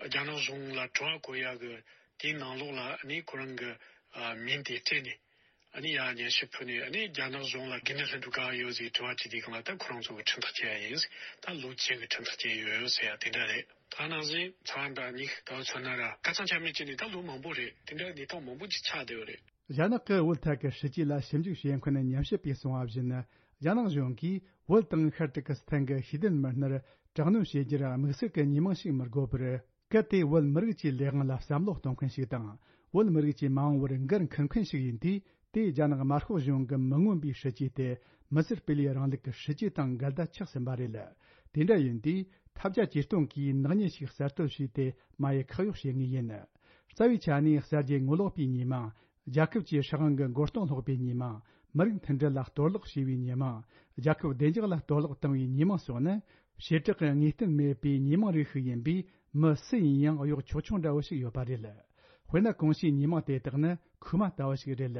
རྒྱ་ནག་གཞུང་ལ་དྲི་བ་བཀོད་ཡག་གི་དེའི་ནང་ལོགས་ལ་ཨ་ནི་ཁོ་རང་གི་ཨ་མིང་དེ་སྤྲད་ནས། ཨ་ནི་ཡར་སྙན་ཞུ་ཕུལ་ནས། ཨ་ནི་རྒྱ་ནག་གཞུང་ལ་དགེ་འདུན་ལྷན་གྲོས་ག་བ་ཡོད་ཟེར་དྲི་བ་དྲིས་དུས་སྒང་ལ། ད་ཁོ་རང་ཚོ་གི་ཁྲིམས་ཐག་བཅད་ཡ་ཡིན། ད་ལོ་བཅུ་གི་ཁྲིམས་ཐག་བཅད་ཡོད་ཟེར་ཡ་དེ་འདྲ་རེད། ད་ནང་བཞིན་ཚ་བ་འདྲ་གཉིས་ད་བར་མཚོན་ན་ར་ཁ་སང་ཆ་མེད་བྱས་ནས་ད་ལོ་མང་པོ་རེད། དེ་འདྲ་གནས་སྟངས་མང་པོ་ཅིག་ཆགས་བསྡད་ཡོད་རེད། རྒྱ་ནག་གི་བོད་ཐད་ཀྱི་སྲིད་ཇུས་ལ་ཞིབ་འཇུག་བྱེད་མཁན་ཉམས་ཞིབ་པས་གསུངས་པ་བཞིན། རྒྱ་ནག་གཞུང་གིས་བོད་དང་ཤར་ཏུར་ཀི་སི་ཐན་གྱི་ཤེས་ལྡན་མི་སྣར་དྲག་གནོན་བྱེད་རྒྱུར་དམིགས་བསལ་གྱི་ཉེས་མིང་ཞིག་མི་དགོས་པར། གལ་ཏེ་བོད་མི་རིགས་ཀྱི་ལས་དབང་ལ་བསམ་བློ་གཏོང་མཁན་ཞིག་དང་། བོད་མི་རིགས་ཀྱི་མ་འོངས་པར་འགན་འཁུར་མཁན་ཞིག་ཡིན་དུས། དེས་རྒྱ་ནག་དམར་ཤོག་གཞུང་གི་མི་མངོན་པའི་སྲིད་ཇུས་དེ་མི་སེར་སྤེལ་ཡུལ་རིང་ལུགས་ཀྱི་སྲིད་ཇུས་དང་འགལ་ཟླ་ཆགས་ཟིན་པ་རེད། དེ་འདྲ་ཡིན་དུས། ཐབས་བརྒྱ་ཇུས་སྟོང་གིས་ནག་ཉེས་ཤིག་གསར་གཏོད་བྱས་ཏེ་མ་ཡི་ཁག་གཡོགས་བྱེད་ངེས་ཡིན། རྩ་བའི་ཆ་ནས་གསར་བརྗེ་ངོ་ལོག་པའི་ཉེས་མིང་། རྒྱལ་ཁབ་ཀྱི་སྲིད་དབང་གི་མགོ་རྟིང་སློག་པའི་ཉེས་མིང་། མི་རིགས་མཐུན་སྒྲིལ་ལ་གཏོར་བརླག་བྱས་པའི་ཉེས་མིང་། རྒྱལ་ཁབ་བདེ་འཇགས་ལ་གཏོར་བརླག་བཏང་བའི་ཉེས་མིང་སོགས་ནི། བྱེ་བྲག་གི་ངེས་གཏན་མེད་པའི་ཉེས་མིང་རིགས་ཤིག་ཡིན་པས། མི་སུ་ཡིན་ཡང་གཡོག་ཆོག་ཆོག་འདྲ་བོ་ཞིག་ཡོད་པ་རེད། དཔེར་ན། གོང་ཞུས་ཉེས་མིང་དེ་དག་ནི་ཁུག་མ་ལྟ་བུ་ཞིག་རེད།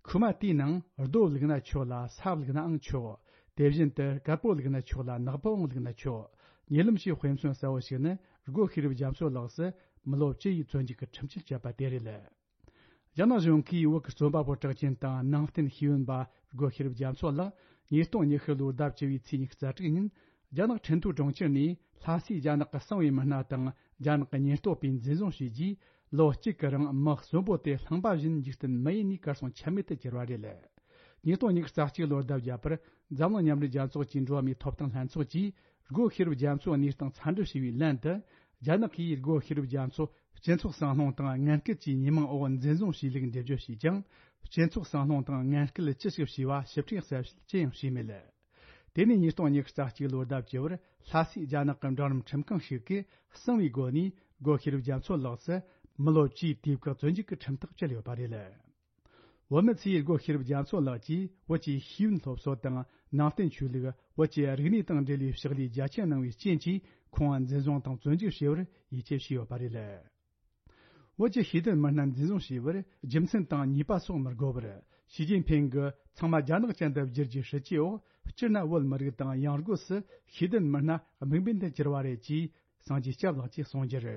ཁུག་མ་དེའི་ནང་རྡོ་བླུགས་ན་ཆོག་ལ། ས་བླུགས་ནའང་ཆོག་དེ་བཞིན་དུ་དཀར་པོ་བླུགས་ན་ཆོག་ལ། ནག་པོའང་བླུགས་ན་ཆོག་ཉེ་ལམ་ཞིག་དཔེ་མཚོན་གསལ་བོ་ཞིག་ནི། སྒོ་ཤེས་རབ་རྒྱ་མཚོ་ལགས་སུ་མི་ལོ་བཅུ་ཡི་བཙོན་འཇུག་གི་ཁྲིམས་གཅོད་བཅད་པ་དེ་རེད། རྒྱ་ནག་གཞུང་གིས་བོད་ཀྱི་རྩོམ་པ་པོ་གྲགས་ཅན་དང་ནང་བསྟན་ཤེས་ཡོན་པ་སྒོ་ཤེས་རབ་རྒྱ་མཚོ་ལགས་ཉིས་སྟོང་ཉི་ཤུ་ལོའི་ཟླ་བཅུ་བའི་ཚེས་ཉི་ཤུ་རྩ་དྲུག་ཉིན། རྒྱ་ནག་ཁྲིན་ཏུའུ་གྲོང་ཁྱེར་ནས་ལྷ་སའི་རྒྱ་ནག་གི་གསང་བའི་མི་སྣ་དང་རྒྱ་ནག་གི་ཉེན་རྟོག་པས་འཛིན་བཟུང་བྱས་རྗེས། ལོ་གཅིག་གི་རིང་མི་གསོན་པོ་དེ་རླངས་པ་བཞིན་འཇིག་རྟེན་མི་ཡུལ་ནས་གར་སོང་ཆ་མེད་དུ་གྱུར་བ་རེད། ཉིས་སྟོང་ཉི་ཤུ་རྩ་གཅིག་ལོར་ཟླ་བརྒྱད་པར་འཛམ་གླིང་མཉམ་འབྲེལ་རྒྱལ་ཚོགས་ཀྱི་འགྲོ་བ་མིའི་ཐོབ་ཐང་ལྷན་ཚོགས་ཀྱིས། སྒོ་ཤེས་རབ་རྒྱ་མཚོའི་གནས་སྟངས་འཚམས་འདྲི་ཞུས་པའི་ལན་དུ། རྒྱ་ནག་གིས་སྒོ་ཤེས་རབ་རྒྱ་མཚོ་སྤྱི་ཚོགས་སྲང་ལྷུང་དང་ངན་སྐུལ་གྱི་ཉེས་མིང་འོག་འཛིན་བཟུང་བྱས་ལུགས་འགྲེལ་བརྗོད་བྱས་ཀྱང་། སྤྱི་ཚོགས་སྲང་ལྷུང་དང་ངན་སྐུལ་ཅི་ཞིག་བྱས་པ་ཞིབ་ཕྲའི་གསལ་བཤད་ཅི་ཡང་བྱས་མེད། དེ་ནས་ཉིས་སྟོང་ཉི་ཤུ་རྩ་གཅིག་ལོའི་ཟླ་བཅུ་བར་ལྷ་སའི་རྒྱ་ནག་གི་འབྲིང་རིམ་ཁྲིམས་ཁང་ཞིག་གིས་གསང་བའི་སྒོ་ནས་སྒོ་ཤེས་རབ་རྒྱ་མཚོ་ལགས་སུ་མི་ལོ་བཅུའི་དུས་བཀག་བཙོན་འཇུག་གི་ཁྲིམས་ཐག་བཅད་ཡོད་པ་རེད། བོད་མི་ཚོས་སྒོ་ཤེས་རབ་རྒྱ་མཚོ་ལགས་ཀྱིས་བོད་ཀྱི་ཤེས་ཡོན་སློབ་གསོ་དང་ནང་བསྟན་ཆོས་ལུགས། བོད་ཀྱི་རིག་གནས་དང་འབྲེལ་བའི་ཕྱག་ལས་རྒྱ་ཆེན་གནང་བའི་རྐྱེན་གྱིས་ཁོང་འཛིན་བཟུང་དང་བཙོན་འཇུག་བྱས་པར་ཡིད་ཆེས་བྱས་ཡོད་པ་རེད། བོད་ཀྱི་ཤེས་ལྡན་མི་སྣ་འཛིན་བཟུང་བྱས་པར་རྒྱུ་མཚན་དང་ཉེས་པ་སོགས་མི་དགོས་པར། ཞི་ཅིན་ཕིང་གིས་ཚང་མ་རྒྱ་ནག་ཅན་དུ་བསྒྱུར་རྒྱུའི་སྲིད་ཇུས་འོག་སྤྱིར་ན་བོད་མི་རིགས་དང་ཡང་སྒོས་སུ་ཤེས་ལྡན་མི་སྣ་དམིགས་འབེན་དུ་གྱུར་བ་རེད་ཅེས་སངས་རྒྱས་སྐྱབས་ལགས་ཀྱིས་གསུངས་རྒྱུར།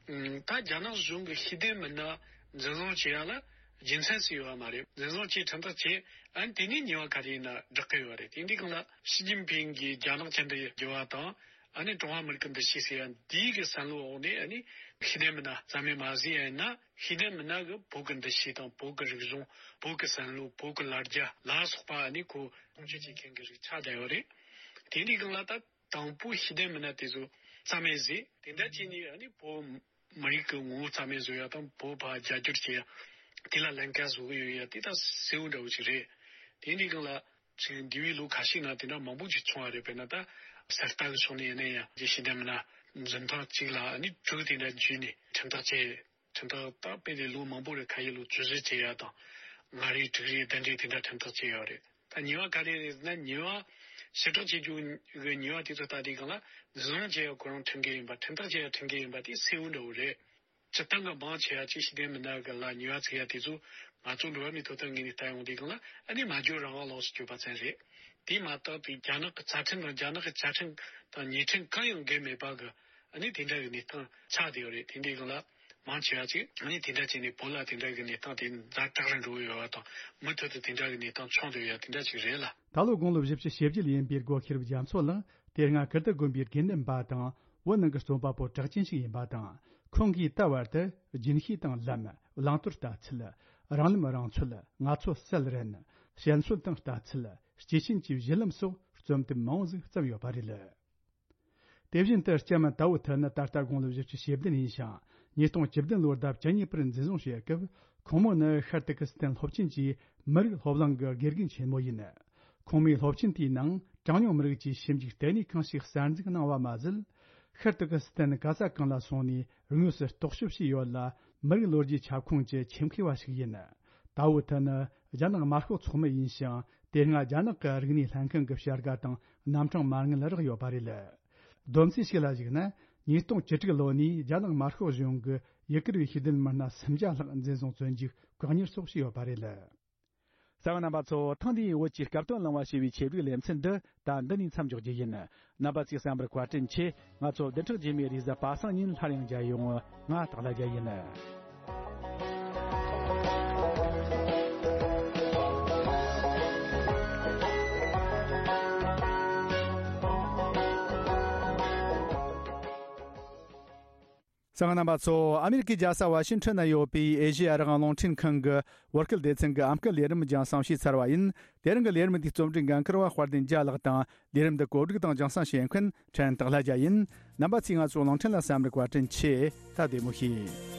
ད་རྒྱ་ནག་གཞུང་གི་ཤེས་ལྡན་མི་སྣ་འཛིན་བཟུང་བྱེད་ཡ་ལ་རྒྱུ་མཚན་ཞིག་ཡོད་པ་མ་རེད། འཛིན་བཟུང་བྱས་ཁྲིམས་ཐག་བཅད། ཨ་ནི་དེ་ནས་ཉེས་པ་ག་རེ་ཡིན་ན་བསྒྲག་གི་ཡོད་རེད། དེ་འདྲའི་སྒང་ལ་ཞི་ཅིན་ཕིང་གིས་རྒྱ་ནག་ཅན་དུ་བསྒྱུར་བ་དང་། ཨ་ནི་ཀྲུང་ཧྭ་མི་རིགས་ཀྱི་འདུ་ཤེས་ཟེར་ཡ་འདིའི་གི་བསམ་བློ་འོག་ནས། ཨ་ནི་ཤེས་ལྡན་མི་སྣ་རྩ་མེད་མ་བཟོས་ཡ་ཡིན་ན། ཤེས་ལྡན་མི་སྣ་གི་བོད་ཀྱི་འདུ་ཤེས་དང་བོད་ཀྱི་རིག་གཞུང་། བོད་ཀྱི་བསམ་བློ། བོད་ཀྱི་ལ་རྒྱ་ལ་སོགས་པ། ཨ་ནི་ཁོ་སྲུང་སྐྱོབ་བྱེད་མཁན་གྱི་རིགས་ཆགས་བསྡད་ཡོད་རེད། དེ་འདྲའི་སྒང་ལ་ད། དང་པོ་ཤེས་ལྡན་མི་སྣ་དེ་ཚོ་རྩ་མེད་བཟོས། དེ་འདྲ་བྱས་ནས་ཨ་ནི་བོད་མི་རིགས་ཀྱི་ངོ་བོ་རྩ་མེད་བཟོ་ཡ་དང་། བོད་ཕར་རྒྱ་སྒྱུར་བྱེད་ཡ་དེ་ལ་ལན་ཁག་བཟོ་གི་ཡོད་ཡ་དེ་ད་གསལ་བོ་འདྲ་བོ་ཞིག་རེད། དེ་འདྲའི་སྒང་ལ་ཅིག་འདས་པའི་ལོ་ཁ་ཤས་ནང་དེ་འདྲ་མང་པོ་ཅིག་བྱུང་བ་རེད། དཔེར་ན་ད་གསར་རྟ་གི་ཕྱོགས་ནས་ཡིན་ན་ཡང་། ཅིག་ཤེས་ལྡན་མི་སྣ་འཛིན་ཐེངས་གཅིག་ལ་ཨ་ནི་དྲུག་དེ་འདྲ་འཇུས་ནས་ཁྲིམས་ཐག་བཅད། ཁྲིམས་ཐག་ད་དཔེ་དེ་ལོ་མང་པོ་རེད། ཁ་ཤས་ལོ་བཅུ་བཞི་བཅད་ཡ་དང་། ལྔ་རེ་དྲུག་རེ་བདུན་རེ་དེ་འདྲ་ཁྲིམས་ཐག་བཅད་ཡོད་རེད། ད་ཉེས་པ་ག་རེ་རེད་ཟེར་ན། ཉེས་པ་ཞིབ་ཕྲ་བྱེད་རྒྱུ་གི་ཉེས་པ་དེ་ཚོ་ལྟ་དུས་སྒང་ལ། འཛིན་བཟུང་བྱས་ཡ་ཁོ་རང་ཁྲིམས་འགལ་ཡིན་པ། ཁྲིམས་ཐག་བཅད་ཡ་ཁྲིམས་འགལ་ཡིན་པ་དེ་གསལ་བོ་འདྲ་བོ་རེད། སྤྱིར་བཏང་གི་མང་ཆེ་བ་ཅིག་ཤེས་ལྡན་མི་སྣ་གི་ལ་ཉེས་པ་བཙུགས་ཡ་དེ་ཚོ་ང་ཚོ་འགྲོ་བ་མིའི་ཐོབ་ཐང་ངོས་ནས་ལྟ་ཡོང་དུས་སྒང་ལ། ཨ་ནི་སྨྲ་བརྗོད་རང་དབང་ལོགས་སུ་གྱུར་པ་ཙམ་རེད། དེ་མ་གཏོགས་དེ་རྒྱ་ནག་གི་རྩ་ཁྲིམས་དང་། རྒྱ་ནག་གི་བཅའ་ཁྲིམས་དང་ཉེས་ཁྲིམས་གང་ཡང་འགལ་མེད་པ་གི། ཨ་ནི་དེ་འདྲ་གི་གནས་སྟངས་ཆགས་བསྡད་ཡོད་རེད། དེ་འདྲའི་སྒང་ལ་མང་ཆེ་བ་ཅིག་ཨ་ནི་དེ་འདྲ་བྱས་ནས་བོད་ལ་དེ་འདྲ་གི་གནས་སྟངས་དེ་ཛ་དྲག་རུ་འགྲོ་གི་ཡོད་པ་དང་། མུ་མཐུད་དུ་དེ་འདྲ་གི་གནས་སྟངས་བྱུང་བསྡད་ཡོད་ཡ་དེ་འདྲ་ཅིག་རེད་ལ། ད་ལོ་དགུང་ལོ་བཞི་བཅུ་ཞེ་བརྒྱད་ཡིན་པའི་སྒོ་ཤེས་རབ་རྒྱ་མཚོ་ལགས་དེ་སྔ་ཀིརྟི་དགོན་པའི་དགེ་འདུན་པ་དང་། བོད་ནང་གི་རྩོམ་པ་པོ་གྲགས་ཅན་ཞིག་ཡིན་པ་དང་། ཁོང་གིས་ད་བར་དུ་རྒྱུན་ཤེས་དང་ལམ། བླང་དོར་ལྟ་ཚུལ། རང་ལམ་རང་ཚོད། ང་ཚོ་གསལ་རན། བཤད་སྲོལ་དང་ལྟ་ཚུལ། སྐྱེས་ཆེན་གྱི་གཞི་ལམ་སོགས་རྩོམ་དེབ་མང་བོ་ཟིག་བརྩམས་ཡོད་པ་རེད། དེ་བཞིན་དུ་ལྕམ་དའོ་ཐི་ནི་ད་ལྟ་དགུང་ལོ་བཞི་བཅུ་ཞེ་བདུན་ཡིན་ཞིང་། ཉིས་སྟོང་བཅུ་བདུན་ལོར་ཟླ་བཅུ་གཉིས་པར་འཛིན་བཟུང་བྱས་སྐབས། ཁོང་མོ་ནི་ཤར་ཏུར་ཀི་སི་ཐན་སློབ་ཆེན་གྱི་མི་རིགས་སློབ་གླིང་གི་དགེ་རྒན་ཆེན་མོ་ཡིན། ཁོང་མོས་སློབ་ཆེན་དེའི་ནང་གྲངས་ཉུང་མི་རིགས་ཀྱི་ཞིབ་འཇུག་ལྟེ་གནས་ཁང་ཞིག་གསར་འཛུགས་གནང་བ་མ་ཟད། ཤར་ཏུར་ཀི་སི་ཐན་ག་ས་གང་ལ་སོང་ནས་དངོས་སུ་རྟོག་ཞིབ་བྱས་ཡོད་ལ། མི་རིགས་ལོ་རྒྱུས་ཁྱབ་ཁོངས་ཀྱི་ཆེད་མཁས་པ་ཞིག་ཡིན། དའོ་ཐི་ནི་རྒྱ་ནག་དམར་ཤོག་ཚོགས་མི་ཡིན་ཞིང་། དེ་སྔ་རྒྱ་ནག་གི་རིག་གནས་ལྷན་ཁང་གི་བྱ་དགའ་དང་རྣམ་གྲངས་མ་དངུལ་རག་ཡོད་པ་རེད། བསྡོམས་རྩིས་ཤིག་ལ་གཞིགས་ན། ཉིས་སྟོང་བཅུ་དྲུག་ལོ་ནས་རྒྱ་ནག་དམར་ཤོག་གཞུང་གིས་ཡུ་གུར་བའི་ཤེས་ལྡན་མི་སྣ་སུམ་བརྒྱ་ལྷག་འཛིན་བཟུང་བཙོན་འཇུག་བཀག་ཉར་སོགས་བྱས་ཡོད་པ་རེད། གསན་པ་རྣམ་པ་ཚོ། ཐེངས་འདིའི་བོད་ཀྱི་སྐབས་དོན་གླེང་བ་ཞེས་པའི་ཆེད་བསྒྲིགས་ལེ་ཚན་འདི་ད་འདི་ནས་མཚམས་འཇོག་རྒྱུ་ཡིན། རྣམ་པ་ཚོས་གསན་པར་བཀའ་དྲིན་ཆེ། ང་ཚོ་བདུན་ཕྲག་རྗེས་མའི་རེས་གཟའ་པ་སངས་ཉིན་སླར་ཡང་མཇལ་ཡོང་། ང་སྟག་ལྷ་རྒྱལ་ཡིན། གསན་པ་རྣམ་པ་ཚོ། ཨ་མེ་རི་ཀའི་རྒྱལ་ས་ཝ་ཤིང་ཊོན་ན་ཡོད་པའི་ཨེ་ཤེ་ཡ་རང་དབང་རླུང་འཕྲིན་ཁང་གི་བོད་སྐད་སྡེ་ཚན་གྱི་ཨམ་སྐད་ལས་རིམ་རྒྱང་སྲིང་བྱས་ཚར་བ་ཡིན། དེ་རིང་གི་ལས་རིམ་འདིའི་རྩོམ་སྒྲིག་འགན་འཁུར་བ་དཔལ་ལྡན་རྒྱལ་ལགས་དང་། ལས་རིམ་འདི་གོ་སྒྲིག་དང་རྒྱང་སྲིང་བྱེད་མཁན་ཕྲན་སྟག་ལྷ་རྒྱལ་ཡིན། རྣམ་པ་ཚོས་ང་ཚོའི་རླུང་འཕྲིན་ལ་གསན་པར་བཀའ་དྲིན་ཆེ། ད་བདེ་མོ་བྱོས།